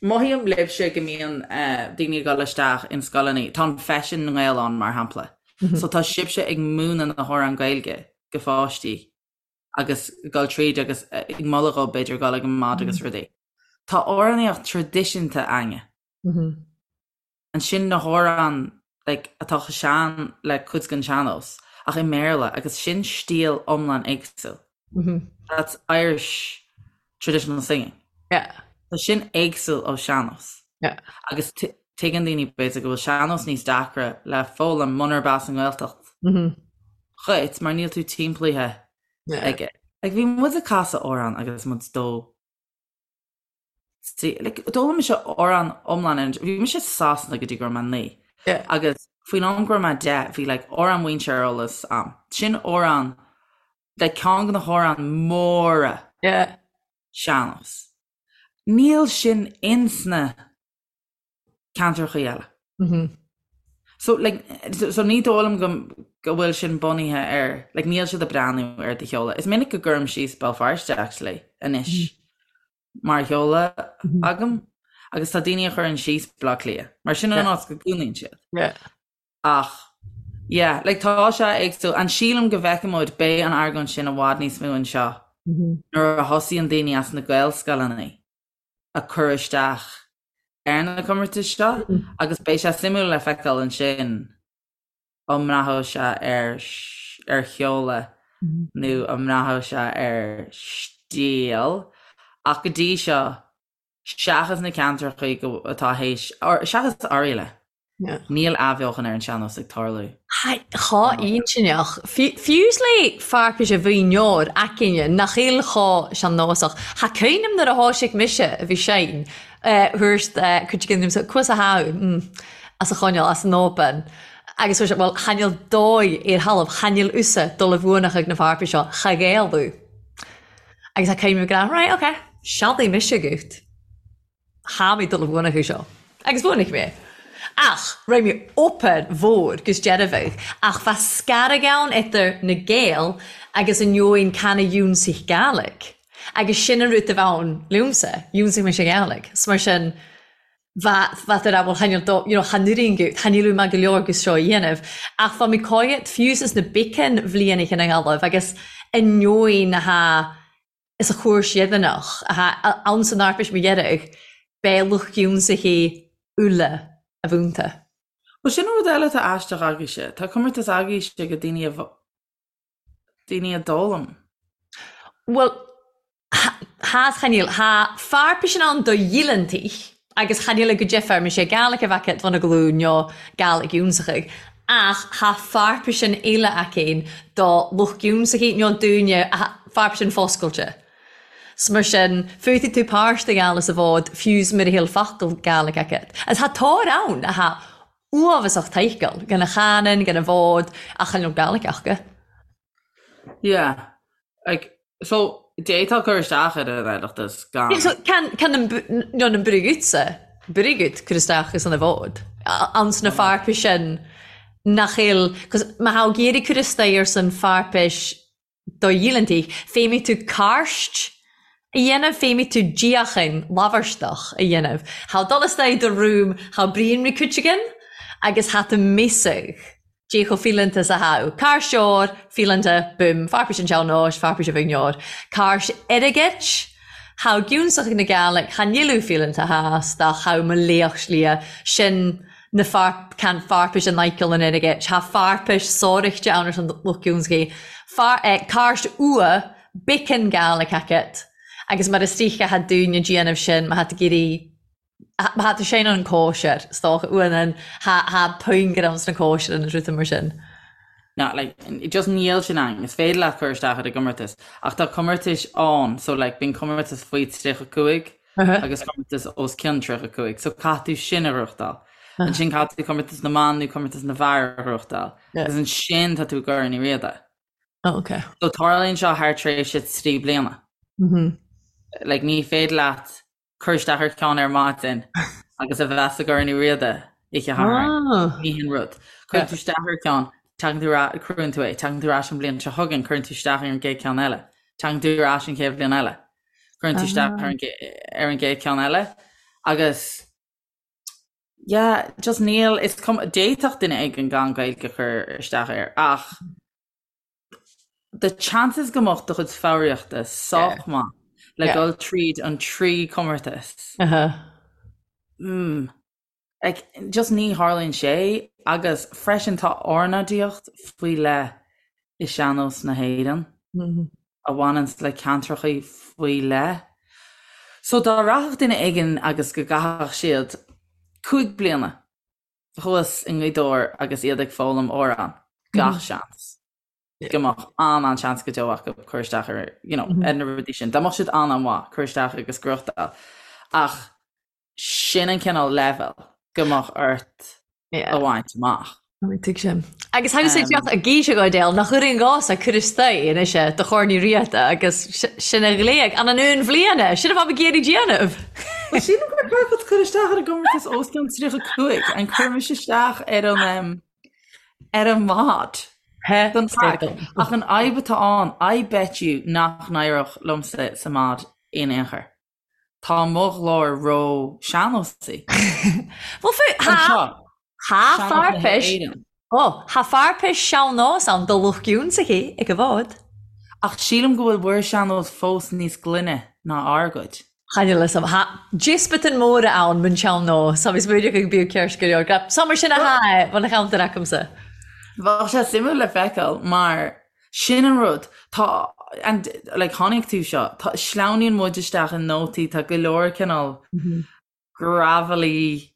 mothaím libhse go mbíonn uh, daoine ag dul isteach in scoileanna, tá an Feisean na nGael ann mar shampla. Mm -hmm. So tá sibhse ag múineadh na hamhráin Gaeilge go pháistí agus dul tríd agus ag moladh dhóibh b'fhéidir dul ag an mbád agus rudaí. Tá amhránaíocht traidisiúnta againne. Ansin na hamhráin like atá chomh sean le cuid den sean-nós ach i mBéarla agus sin stíl iomlán éagsúil. That's Irish traditional singing. Yeah. Tá sin éagsúil ó sean-nós. Yeah. Agus tuigeann daoine b'fhéidir go bhfuil sean-nós níos deacra le foghlaim munarb as an nGaeltacht dhuit mar níl tú timpeallaithe aige. Like bhí muid ag casadh amhrán agus muid dó See, like, d'fhoghlaim mise amhrán iomlán ar an, bhí mise i Sasana go dtí go raibh mé 9. Yeah. Agus faoin am go raibh mé 10, bhí like, amhrán mhuintir ar eolas a'm. Sin amhrán, like, ceann de na hamhráin móra Yeah. sean-nós. Níl sin insna ceantrachaí eile. So, like, so ní dóigh liom go, go bhfuil sin bunaithe ar, like, níl siad ag breathnú ar do sheoladh. Is minic go gcuirim síos Béal Feirste, actually, anois, mar sheoladh agam, agus tá daoine a chuireann síos Baile Átha Cliath, mar sin an áit go gcónaíonn siad. Yeah. Ach, yeah, like, tá sé éagsúil, and sílim go bhfeicfidh muid, beidh an argóint sin i bhfad níos mó anseo. Nuair a thosaíonn daoine as na Gaelscoileanna ag cur isteach ar na comórtais seo agus beidh sé suimiúil le feiceáil ansin an mbraithfidh sé ar ar sheoladh nó an mbraithfidh sé ar stíl ach go dtí seo seachas na ceantracha atá théis, seachas Oirialla, níl athbheochan ar an sean-nós ag tarlú. Chá intinneach. Fiú's le fearpais a mhaoineoir aicinne nach eil chá sean-nósach. Tha cuimhneam nuair a thoisigh mise a bhí sein thabhairt cuid den liomsa cuas a sháthú as a choinneáil as an obair agus chuir sé bhuel chan eil dóigh ar thalamh chan eil usa dul i bhfuanach ag na fearpais seo cha ghéilleadh. Agus tha cuimhneam ag rá right ok sealdaigh mise agat. Tha mi dol a bhuanachadh seo. Agus bhuanaigh mé. Ach raibh mé obair mhór 'gus dearfaidh, ach bha scarag ann idir na Gaeil agus an eoin can a dhiúnsaigh Gàidhlig. Agus sin an rud a bh' ann liomsa, dhiúnsaigh mise Gàidhlig. 'S mar sin, bha, bha tú a rá, bhuel chan eil dó, you know, chan oireann gut, chan eil maith go leor 'gus seo a dhéanamh. Ach bha mi còimhead fiù 's na beacan bhlianaich in a nGallaibh agus an eoin a tha is a chúirt dheireanach atá ann san Eorpais mo dheireadh, beidh lucht ionsaithi uile a mhúinte. Bhuel, sin rud eile atá aisteach agaibhse. Tá comórtas agaibhse ag daoine a daoine a d'fhoghlaim. Bhuel, tha 's chan eil. Tha fearpaisean ann do dhíleantaich agus chan eil go deifir, mise Gàidhlig a bheadh agat bhun a glún nó Gàidhlig ionsaitheach, ach tha fearpaisean eile againn do lucht ionsaithi nó dúinne, fearpaisean foscailte. 'S mar sin, féadfaidh tú páirt a ghabháil sa bhfód fiú's mura bhfuil focal Gàidhlig agat. Agus tha tóir ann atá uafásach toighceáil, gan a chanann, gan a bhfód, ach chan eil Gàidhlig aca. Yeah. Like, so, d'fhéadfá cur isteach ar an Oireachtas gan. Yeah, so can, can an, nó an Brigitte, Brigitte cur isteach is an bhfód. Anns na fearpais sin nach eil, 'cause má thá ag iarraidh cur isteach ar san fearpais do dhíleantaigh, féadfaidh tú cairt a dhéanamh, féadfaidh tú díochan labharstach a dhéanamh. Thá dul isteach i do room, thá Brian McCuiteagan agus thá tú miosach. Dé chomh fileanta is a thá. Cairseoir fileanta, boom, fearpais an tsean-nóis, fearpais a bhuigneoir. Cairt airgid, thá giúnsach na Gàidhlig, tha níl fileanta theas, dá thá mo laoch slighe, sin na fear, can fearpais an Michael an airgid, thá fearpais sóireachta ann ar son lucht giúnsachaí. Fear, eh, cairt ua, biceann Gàidhlig agat, agus mar is dóiche thá dúine déanamh sin, má thá tú ag iarraidh Má tá sé an cóisir, is dócha, uain tha puinn ann sna cóisir an rud mar sin. No, like, just níl sin ann. Is féidir leat cur isteach ar an gcomórtas, ach tá comórtais ann, so like, bíonn comórtas faoi 35 agus comórtas os cionn 35, so caithfidh tú sin a ghnóthachtáil. Ansin caithfidh tú comórtas na mban nó comórtas na bhfear a ghnóthachtáil. Agus ansin tá tú i gCorn Uí Riada. Oh, okay. So tarlaíonn seo thar tréimhse 3 bliana. Like, ní féidir leat cur isteach ar cheann ar maidin agus a bheith sa gCorn Uí Riada oíche Shathairn. Ní hin rud. Cuireann tú isteach ar cheann, tagann tú ar, cuireann tú é, tagann tú ar ais an bhliain seo chugainn, cuireann tú isteach ar an gcéad cheann eile. Tagann tú ar ais an chéad bhliain eile. Cuireann tú isteach ar an ar an gcéad cheann eile. Agus yeah, just níl, is cuma, d'fhéadfadh duine éigin gan Gaeilge cur isteach air ach the chances go mbeadh do chuid foghraíochta sách maith le dul tríd an trí comórtas. Mm. Like, just ní tharlaíonn sé agus freisin tá ornáidíocht faoi leith i sean-nós na hÉireann a bhaineann le ceantracha faoi leith. So dá rachadh duine éigin agus go gcaithfeadh siad 5 bliana thuas i nGaoth Dobhair agus iad ag foghlaim amhrán, gach seans go mbeadh an-an-seans go deo acu cur isteach ar, you know, ar na rudaí sin. Dá mbeadh siad an-an-mhaith, cur isteach agus gnóthachtáil. Ach sin an cineál leibhéal go mbeadh ort a bhaint amach. Tuigim. Agus tha thusa ag gíseadh Goidéal nach oireann dhomsa cur isteach anois do Chorn Uí Riada agus sin a ghlaoigh an an aon bhliana, sin a bheadh ag iarraidh déanamh. Well sílim gur ceart cur isteach ar an gcomórtas os cionn 35, an cuirimis isteach ar an ar an mbád don chraic. Ach an fhadhb atá ann, I bet you nach n-éireodh liomsa sa mbád in aon chor. Tá mo ghlór ró sean-nósaí. Bhuel fú, tha, tha fearpais, ó, tha fearpais sean-nós ann do lucht ionsaithi ag an bhfód. Ach sílim go bhfuil bhur sean-nós fós níos glaine ná ár gcuid. Chan fhios a'm. Tha diospatain mòra ann mun sean-nós, tha mi smaoineachadh gu bíodh ceart go leor. Gra, Sa mar sin a tha e, bhon a cheantar acamsa. Bheadh sé suimiúil le feiceáil mar sin an rud, tá, and like chonaic tú seo, tá, sleamhnaíonn muid isteach i nótaí, tá go leor cineál gravelly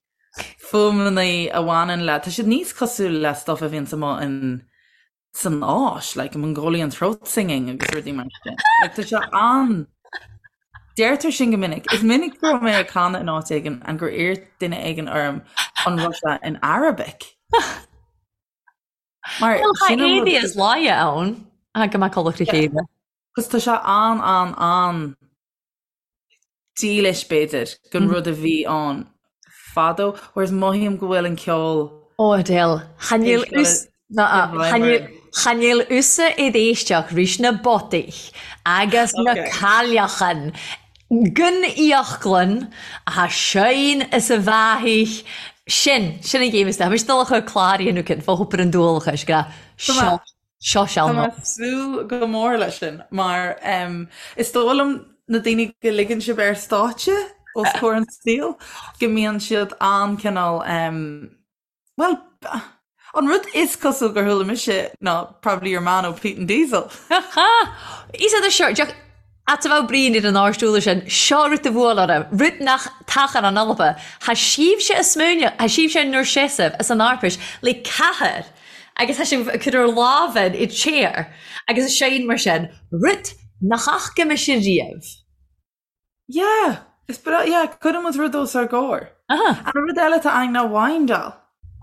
fuaimeanna a bhaineann le, tá siad níos cosúil le stuff a bhíonns amuigh in san Áis, like Mongolian throat singing agus rudaí mar sin. Like, tá sé an Deirtear sin go minic. Is minic go raibh mé ag canadh in áit éigin and gur iarr duine éigin orm an raibh sé in Arabic. Mar Well, tá sin an rud- éadaí is láidhe ann, a go mbeadh codladh le chéile. Cos tá sé an an an dílis b'fhéidir don rud a bhí ann fadó, whereas mothaím go bhfuil an ceol Ó Adele, chan eil chan eil thusa id èisteachd ris na botaich agus na cailleachan gun íochglann a tha seighinn is a bheathaich sin, sin an ghéim is Tha mise dol a chur clàr a dhéanamh cinn fá thobar an dualchais, gra seo Seo Tá mé ag súil go mór leis sin mar is dóigh liom na daoine go ligeann sibh ar stáitse os comhair an tsaoil go mbíonn siad an-cineál bhuel an rud is cosúil gur chuala mise ná probably your man ó Peat and Diesel. Is é seo a bheadh Brian ar an árstúla sin, seo rud a bhuail orm, rud nach tachan an Alba. Tha sibhse a smaoineamh, tha sibhse 'n-ur seasamh as an Arpais le cathair agus tha sibh ag cur ur làmhan id chair agus a seinm mar sin, rud nach fhaca mise riamh. Yeah, is breá, yeah, cuireann muid rud os ár gcomhair. Aha. An rud eile atá ann ná windáil.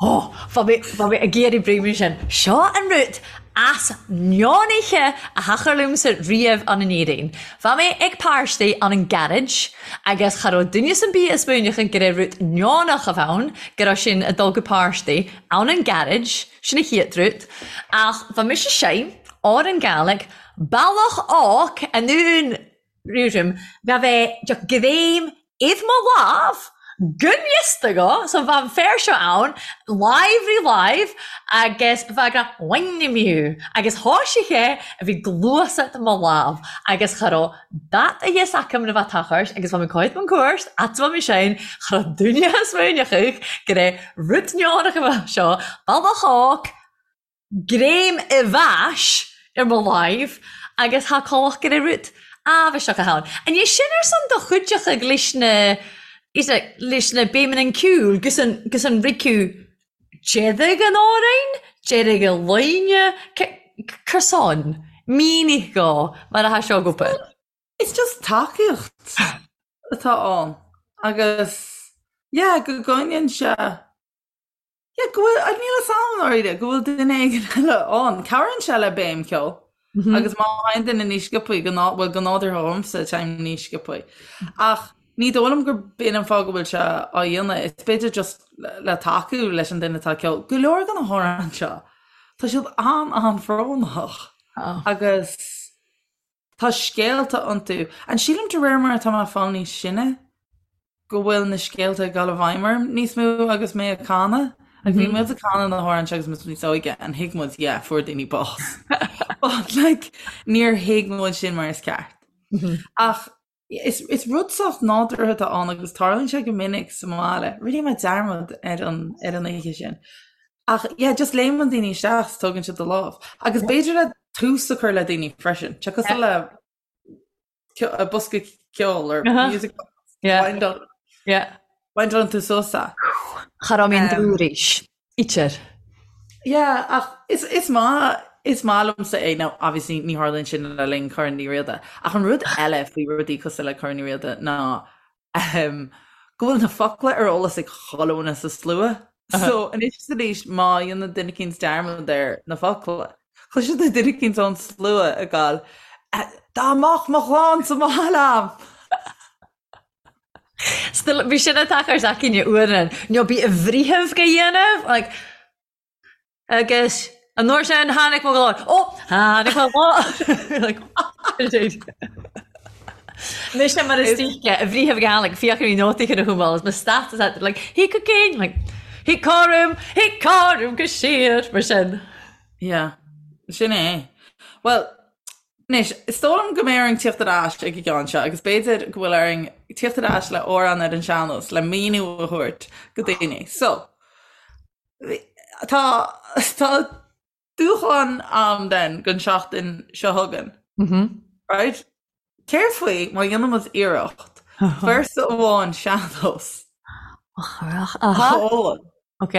Ó, bha mi, bha mi ag iarraidh breim sin. Seo an rud as neonaithe a thachair liomsa riamh ann in Éirinn. Bha mi ag pàrtaidh ann an garage agus cha robh duine 'san bith a' smaoineachadh go raibh rud neonach a bh ann, go raibh sinn a' dul gu pàrtaidh ann an garage, sin a chiad rud. Ach bha mise seinnm òr an Gàidhlig, bealach óc anonn Rúim ga bheith de ghreim id mo lámh gun fhios go, so bha an fear seo ann, láimh ri láimh, agus bha ag rá Wind-me agus thoisigh sé a bhí gluasacht mo lámh agus cha raibh dat a fhios acam na bha tochairt agus bha mé coit man cuairt at bha mé sin cha raibh duine a smaoineachadh go raibh rud neonach a bha seo bealach óc greim i bhfais ar mo láimh agus thá colach go raibh rud áibheiseach ann. An é sin ar son do chuideachadh leis na is ea leis na béimeanna an ceoil gus an gus an riceadh deireadh an amhráin, deireadh a loine, cur son, mínigh dhó mar atá seo ag obair. It's just tacaíocht atá ann agus yeah go gcoinníonn sé Yeah, go bhfuil, níl fhios a'm i ndáiríre, go bhfuil duine éigin eile ann. Cabhraíonn sé le béim ceoil. Agus má théann duine níos sciobthaí, go ná, bhuel, go nádúrtha dhomsa, téim níos sciobthaí. Ach ní dóigh liom gur b'in an fáth go bhfuil sé á dhéanamh. Is b'fhéidir just le tacú leis an duine atá ag ceol. Go leor de na hamhráin seo, tá siad an-an-bhrónach. Agus tá scéalta iontu. And sílim de réir mar atá mé ag fáil níos sine, go bhfuil na scéalta ag dul i bhfeidhm orm níos mó agus mé ag canadh. Like bhí muid ag canadh na hamhráin seo agus muid níos óige and thuig muid yeah fuair daoine bás. But like níor thuig muid sin mar is ceart. Ach is, is rud sách nádúrtha atá ann agus tarlaíonn sé go minic sa mbaile. Rinne mé dearmad ar an, ar an oíche sin. Ach yeah just léimeann daoine isteach is tógann siad do lámh. Agus b'fhéidir le tús a chur le daoine freisin. Tá cosúil le bosca ceoil or music box. Yeah. Windálann tú suas é. Cha raibh mé an dúris. Itir. Yeah, ach is, is maith, is maith liomsa é. Now, obviously, ní tharlaíonn sin le linn Corn Uí Riada. Ach an rud eile faoi rudaí cosúil le Corn Uí Riada ná um, go bhfuil na focla ar eolas ag chuile dhuine sa slua. So, anois is arís, má dhéanann duine eicínt dearmad ar na focla, Cloiseann tú duine eicínt ón slua ag gabháil, Dá mbeadh mo chlann sa mbaile a'm! Still, bhí sin ag tochairt againne uaireanta, nó bí i bhfritheamh go dhéanamh, like, agus an uair sin tháinig mo ghlór, ó, tháinig mo ghlór! Like, Mise mar is díce a bhriathar Gaelic fiach ar nótaí chun a thumáil is mo status at like he could gain like he corum he corum go siar mar sin. Yeah, sin é. Well, Anois, is dóigh liom go mbeidh orainn tíocht ar ais ag an gceann seo agus b'fhéidir go bhfuil orainn tíocht ar ais le amhrán ar an sean-nós le míniú a thabhairt go daoine. So, tá tá dúshlán a'm den don seachtain seo chugainn. Right? Céard faoi má dhéanann muid iarracht véarsa amháin sean-nós a fhoghlaim? Ok.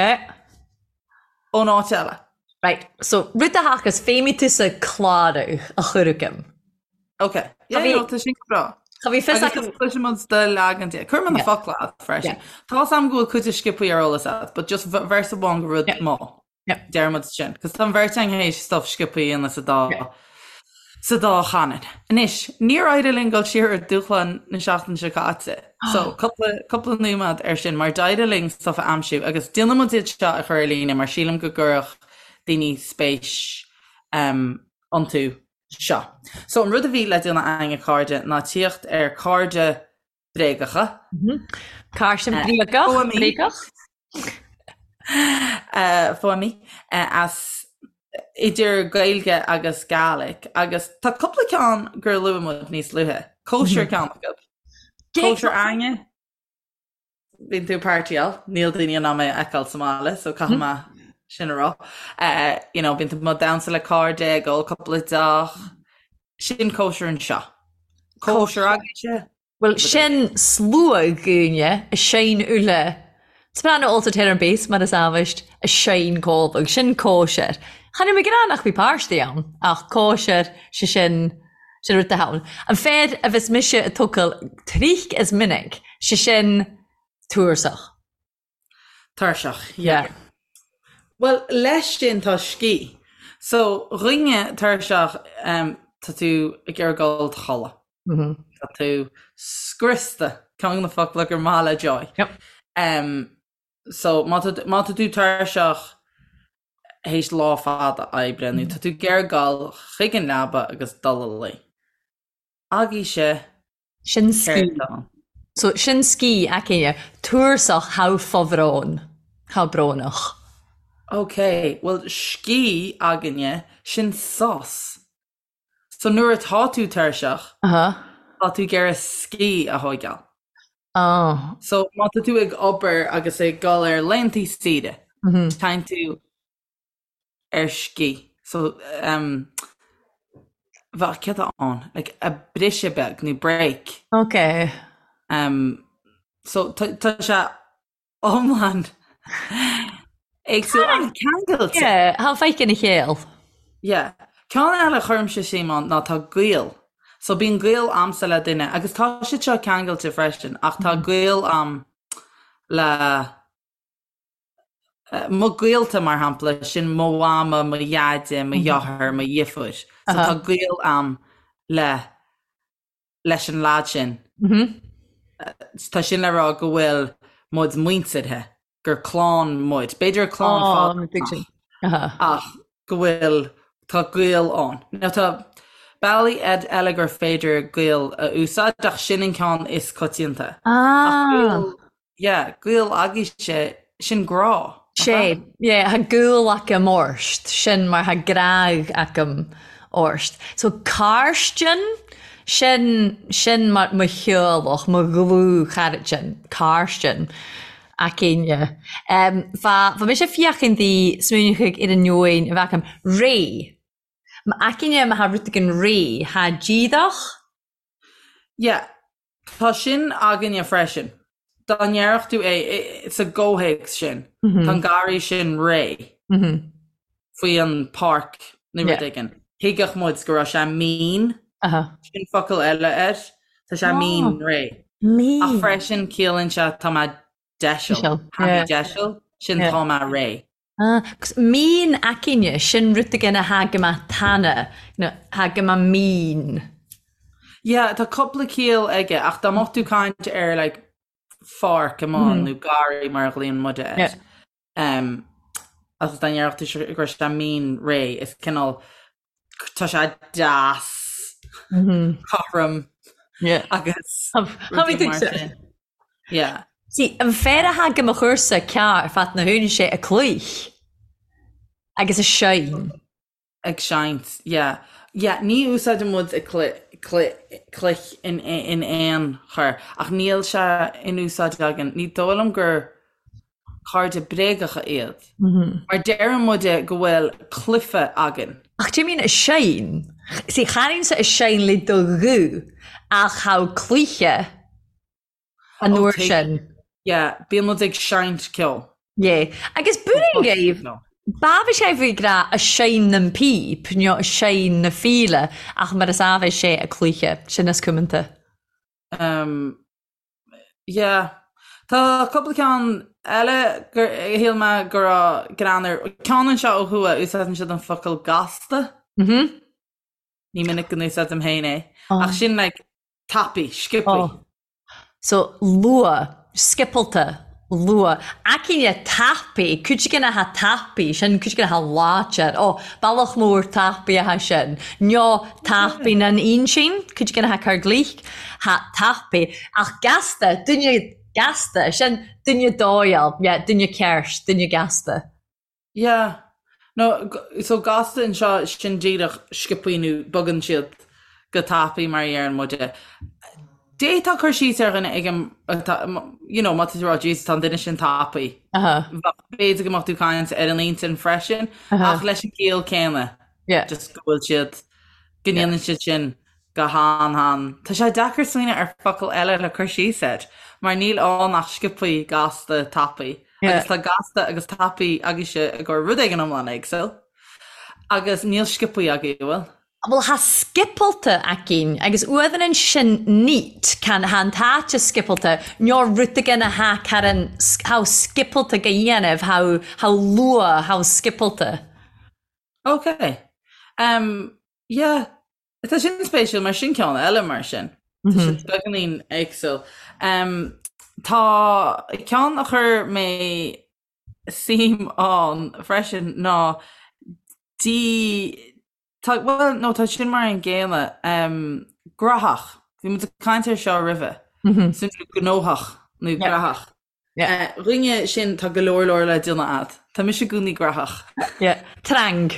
Ón áit eile. Right, so rud a thagas féimidh tusa clárú a chur agam. Ok. Yeah, no, tá sin go breá. Cha bhí fios Agus agam. cloisfidh muid do leagan de. Cuirfidh mé na focla agat freisin. Tá 's a'm go bhfuil cuid de sciobthaí ar eolas agat, but just véarsa amháin go rud maith. Yeah. Deir muid sin. Cos tá an bheirt againn théis stuff sciobthaí a dhéanamh sa dá sa dá chanúint. Anois, níor éirigh linn dul siar ar dúshlán na seachtaine seo caite. So, cúpla, cúpla nóiméad ar sin, mar d'éirigh linn stuff a aimsiú agus déanfaidh muid iad seo a chur ar líne mar sílim go gcuirfeadh daoine spéis um, iontu seo. So, an rud a bhí le déanamh againn a chairde ná tíocht ar cairde bréagacha. Cairde bréagach, bréagach. Fuaimí as idir Gaeilge agus Gaelic agus tá cúpla ceann gur luaigh muid níos luaithe. Cóisir ceann acu. Cóisir againne. Bíonn tú ag partyáil, níl daoine in ann mé a fheiceáil sa mbaile so caithfidh mé sin a rá. You know, bíonn tú ag damhsa le cairde, ag ól cúpla deoch. Sin cóisir anseo. Cóisir agaibhse? Bhuel, sin slua daoine a sheinn uile. Soprano alto tenor and bass mar is amhaist a sheinn cómhadh. Sin cóisir. Chan fhuil mé ag rá nach bhí páistí ann, ach cóisir, sé sin, sin rud atá ann. An fear a bheas mise ag tógáil tric is minic, sé sin tursach. Tuirseach, yeah. Bhuel, leis sin tá scíth. So, dhuine tuirseach, tá tú ag iarraidh dul a chodladh. Tá tú scriosta, ceann de na focla gur maith le Joy. So, má tá má tá tú tuirseach théis lá fada oibre nó tá tú ag iarraidh dul chuig an leaba agus dul a luí. Agaibhse Sin scíth. So, sin scíth againne. Tursach tha fo-bhròn. Tha brónach. Ok, bhuel scíth againne, sin sos. So nuair atá tú tuirseach, tá tú ag iarraidh scíth a thóigeáil. Oh. So má tá tú ag obair agus ag dul ar laethantaí saoire, téann tú ar scíth. So, um, bheadh céard atá ann? Like, a briseadh beag nó break. Ok. Um, so tá tá sé iomlán éagsúil ach ceangailte. Yeah, tha faic ina chéill. Yeah. Ceann eile a chuirimse suim ann ná tá gaol. So bíonn gaol a'msa le duine agus tá siad seo ceangailte freisin ach tá gaol a'm le Mo ghaolta, mar shampla, sin mo mhama, mo dheaide, mo dheartháir, mo dheirfiúr. So tá gaol a'm le, leis an leaid sin. Tá sin le rá go bhfuil muid muinteartha, gur clann muid. B'fhéidir clann fada ach go bhfuil, tá gaol ann. Now tá bealaí eile gur féidir gaol a úsáid ach sin an ceann is coitianta. Ach gaol Yeah, gaol agaibhse, sin grá, nach ea? Sé, yeah, tha gàol agam ort, sin mar tha gràdh agam ort. So càirsdean, sin, sin mar mo theaghlach, mo dhlúth-chairdin, càirsdean againne. Um, bha, bha mise feuchainn di smaoineachadh air an neoin a bheith agam, réidh. M'againne ma tha rud éigin réidh, tha díreach. Yeah, Tá sin againne freisin. Dá ndéarfadh tú é sa gcomhthéacs sin, tá an garraí sin réidh faoi an páirc nó rud éigin, thuigfeadh muid go raibh sé mín, sin focal eile air, tá sé mín réidh. Ach freisin ciallaíonn sé tá mé deiseal, tha mi deiseal, sin tá mé réidh. Agus mín againne, sin rud éigin a tha gu math tana, you know, tha gu math mín. Yeah, tá cúpla ciall aige, ach dá mbeadh tú caint ar like pháirc amuigh nó garraí mar a ghlaonn muide air, yeah. um, agus dá ndéarfadh tú go raibh sé mín réidh, is cineál tá sé deas, mm -hmm. cothrom yeah. agus rudaí mar sin. Yeah. See, an fear a tha gu mo chursa ceàrr fad na h-aon sé a cluich agus a seinn. Ag seinnt, yeah. Yeah, ní úsáideann muid ag cloich in aon chor, ach níl sé in úsáid againn. Ní dóigh liom gur cairde bréagacha iad. Mar deireann muide go bhfuil cluife againn. Ach do you mean a seinn? See, chanainn-sa a seinn le do ghuth, ach tha cluiche an uair sin. Yeah, bíonn muid ag seinnt ceoil. Yeah. Agus buaireann gaibh, b'amh sé bhí grá a seinn nan píp, nó a seinn na fíle, ach mar is amh sé a cluiche, sin is cumanta. Um, yeah. Tá cúpla ceann eile gur shíl mé go raibh greann air. Ceann anseo ó thuaidh, úsáideann siad an focal gasta. Mhm. Ní minic go n-úsáidim féin é. Ach sin like tapaidh, sciobthaí. Oh. So, luath, sciopalta, luath. Aicinne tapaidh, cuid againn atá tapaidh, sin cuid againn atá láidir. Ó, bealach mór tapaidh atá sin. Nó tapaidh nan ínsín, cuid againn atá cur glich, thá tapaidh. Ach gasta, duine gasta, sin duine dóigheáil, yeah, duine ceart, duine gasta. Yeah. No, so gasta anseo sin díreach sciobthaí nó bogann siad go tapaidh mar a dheireann muide. D'fhéadfá cur síos ar dhuine ag an, you know, má tá tú ag rá Jesus tá an duine sin tapaidh. B'fhéidir go mbeadh tú ag caint ar an intinn freisin ach leis an gciall céanna. Yeah. Just go bhfuil siad, go ndéanann siad sin go han-han. Tá sé deacair smaoineamh ar focal eile le cur síos air, mar níl ann ach sciobthaí, gasta, tapaidh. Agus tá gasta agus tapaidh agaibhse i gcomhair rud éigin iomlán éagsúil. Agus níl sciobthaí agaibh, an bhfuil? Bhuel, tha sciopalta againn, agus uamhan sin neat, can tha an t-àite sciopalta, no rud againn a tha caran, tha sciopalta go dhéanamh, tha, tha luath, tha sciopalta. Ok. Um, yeah. Tá sin spéisiúil mar sin ceann eile mar sin. Tá siad beagáinín éagsúil. Um, tá ceann a chuir mé suim ann freisin ná dí tá, well, no, tá sin mar an gcéanna. Um, graitheach. Bhí muid ag caint air seo roimhe. Mm -hmm. Sin gnóthach nó graitheach. Dhuine sin tá go leor leor le déanamh a'd. Tá mise i gcónaí graitheach. Yeah. Trang.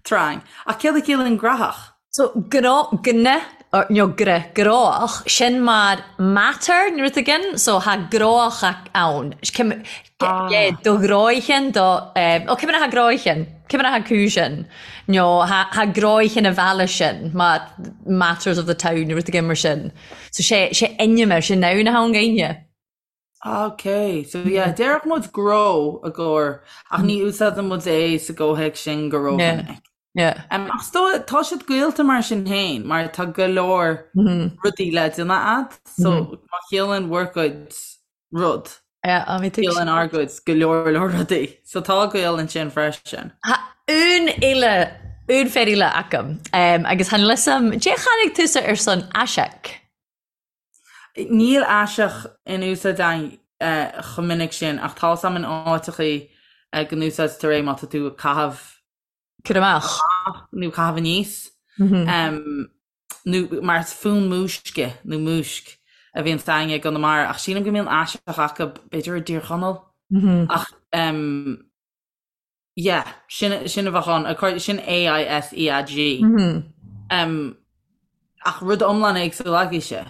Trang. Ach céard a chiallaíonn graitheach? So gnó, gna, or nó gra, gróach, sin mar matter nó rud éigin, so tha gróach ann. Cim, Ah. yeah, do ghróichean, do, eh, ó cimine tha gróichean, cimine tha cúisean, nó tha, tha gróichean a bhealach sin, mar matters of the town nó rud éigin mar sin. So sé, sé ainm sé noun atá ann againne. Ok, so yeah, déarfadh muid gnó i gcomhair, ach ní úsáideann muid é sa gcomhthéacs sin go rómhinic. Yeah. Um, ach is dóigh, tá siad gaolta mar sin féin, mar tá go leor rudaí le déanamh a'd, so má chiallaíonn bhur gcuid rud, Yeah, á, bhí tú. ciallaíonn ár gcuid go leor leor rudaí. So tá gaol ansin freisin. Tha un eile, un fear eile agam, um, agus tha níl 'fhios a'm, dè chanaig tusa ar son aiseag? Níl aiseag in úsáid againn chomh minic sin ach tá 'fhios a'm in áiteachaí go n-úsáidtear é má tá tú ag caitheamh Cur amach. nó caitheamh aníos nó mar is fonn múisce nó múisc a bhíonn againne i gConamara ach sílim go mbíonn aiseag acu b'fhéidir i dTír Chonaill ach Yeah, sin, sin a bheadh ann, according, sin A-I-S-E-A-G. Um, ach rud iomlán éagsúil agaibhse.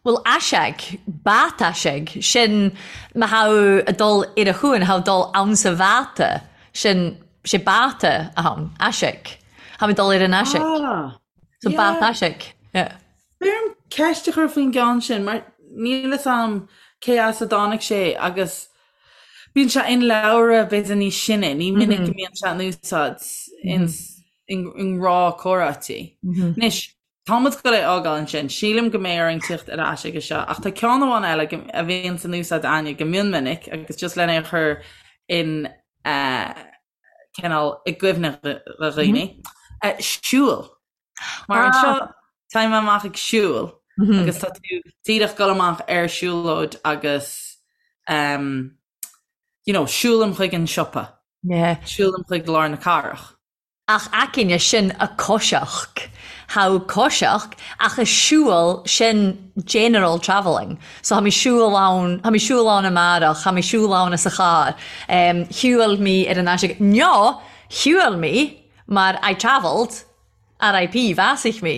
Bhuel, aiseag, bát aiseag, sin má tha thu a' dol ar a chuan, tha thu dol ann sa bháta, sin, sé báta a tha ann, aiseag. Tha mi dol ar an aiseag. Ah, So yeah. bát aiseag, yeah. B'fhearr dom ceist a chur faoin gceann sin mar níl fhios a'm cé as a dtáinig sé agus bíonn sé in leabhra b'fhéidir níos sine, ní minic go mbíonn sé in úsáid in i ngnáth-chomhráití. Anois, tá muid ag dul é a fhágáil ansin, sílim go mbeidh orainn tíocht ar ais aige seo ach tá ceann amháin eile a bhíonn in úsáid a'inne go mion minic agus just lena chur in cineál i gcuimhne do dhaoine. Siúl. Mar anseo táim amach ag siúl agus tá tú díreach dul amach ar siúlóid agus um, you know, siúlaim chuig an siopa. Yeah. Siúlaim chuig lár na cathrach. Ach aicinne sin a coiseach. Tha thu coiseach ach a siubhal sin general travelling. So tha mi siubhal ann, tha mi siubhal ann amàrach, tha mi siubhal ann as a charr. Um, shiubhail mi ar an aiseag. No, shiubhail mi mar I travelled. RIP, bhásaigh mé.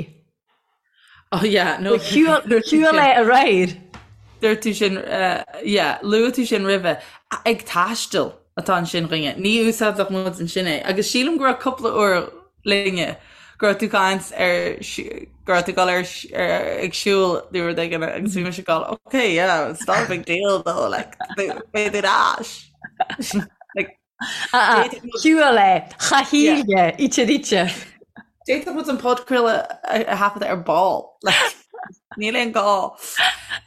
Oh yeah, no. Shiúil é aréir. Dúirt tú sin, yeah, luaigh tú sin roimhe. Ag taisteal atá ansin dhúinne. Ní úsáidfeadh muid ansin é. Agus sílim go raibh cúpla uair linne go raibh tú caint ar go raibh tú ag dul ar ag siúl nó rud éigin agus bhí mise ag dul, okay, yeah, it's not a big deal though, like, beidh tú ar ais. Like, Shiúil é, cha shíle, ite ite. D'fhéadfadh muid an podchraoladh a thaifeadadh ar ball. Níl aon gá.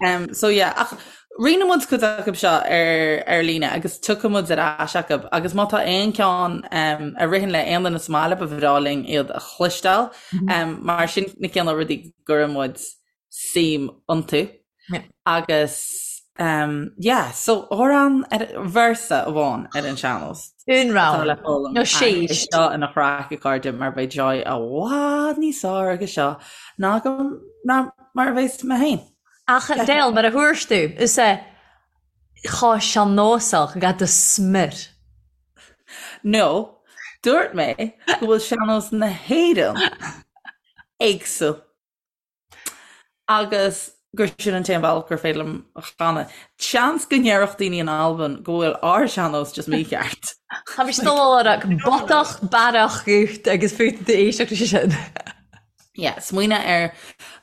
Um, so yeah, ach rinne muid cuid acu seo ar, ar líne agus tiocfaidh muid ar ais acu agus má tá aon ceann um, a ritheann le aon duine sa mbaile ba bhreá linn iad a chloisteáil mm -hmm. um, mar sin na cineál rudaí go gcuireann muid suim iontu. Agus um, yeah, so amhrán ar véarsa amháin ar an sean-nós. Un rogha le foghlaim. Nó séis. Seo ina chraic a chairde mar beidh Joy i bhfad níos fearr aige seo ná go ná mar a bheas mé féin. Ach Del, mar a thuairs tú, is é chomh sean-nósach ga do smior. No, dúirt mé go bhfuil sean-nós na hÉireann éagsúil. Agus gur sin an t-aon bhealach gur féidir liom a chanadh. Seans go ndéarfadh daoine in Albain go bhfuil ár sean-nós just mícheart. Tá mise dul a rá botach bearach gut agus fút tú éisteacht leis sin. Yeah, smaoineamh ar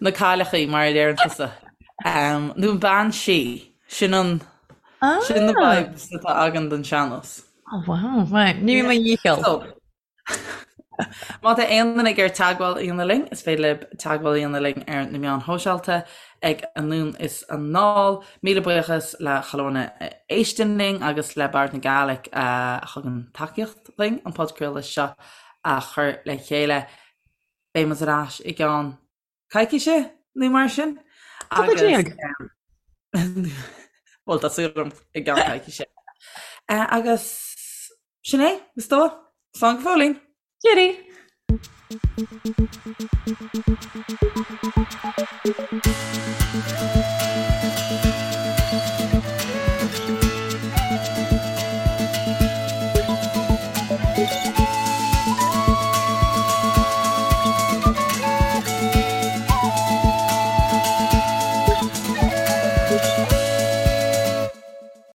na cailleachaí mar a deireann tusa. Um, nó an bean sí, sin an sin na ah. vibes atá agam don sean-nós. Oh wow, right. Ní mo dhícheall. So, Má tá aon duine ag iarraidh teagmháil a dhéanamh linn, is féidir libh teagmháil a dhéanamh linn ar na meáin shóisialta ag Anonn is Anall. Míle buíochas le chuile dhuine a éisteann linn agus le Bòrd na Gàidhlig a thugann tacaíocht dúinn an podchraoladh seo a chur le chéile. Beidh muid ar ais i gceann coicíse nó mar sin. Cúpla déag. Bhuel, tá súil agam i gceann coicíse. Agus sin é, is dóigh. Slán go fóillín! Cheerio!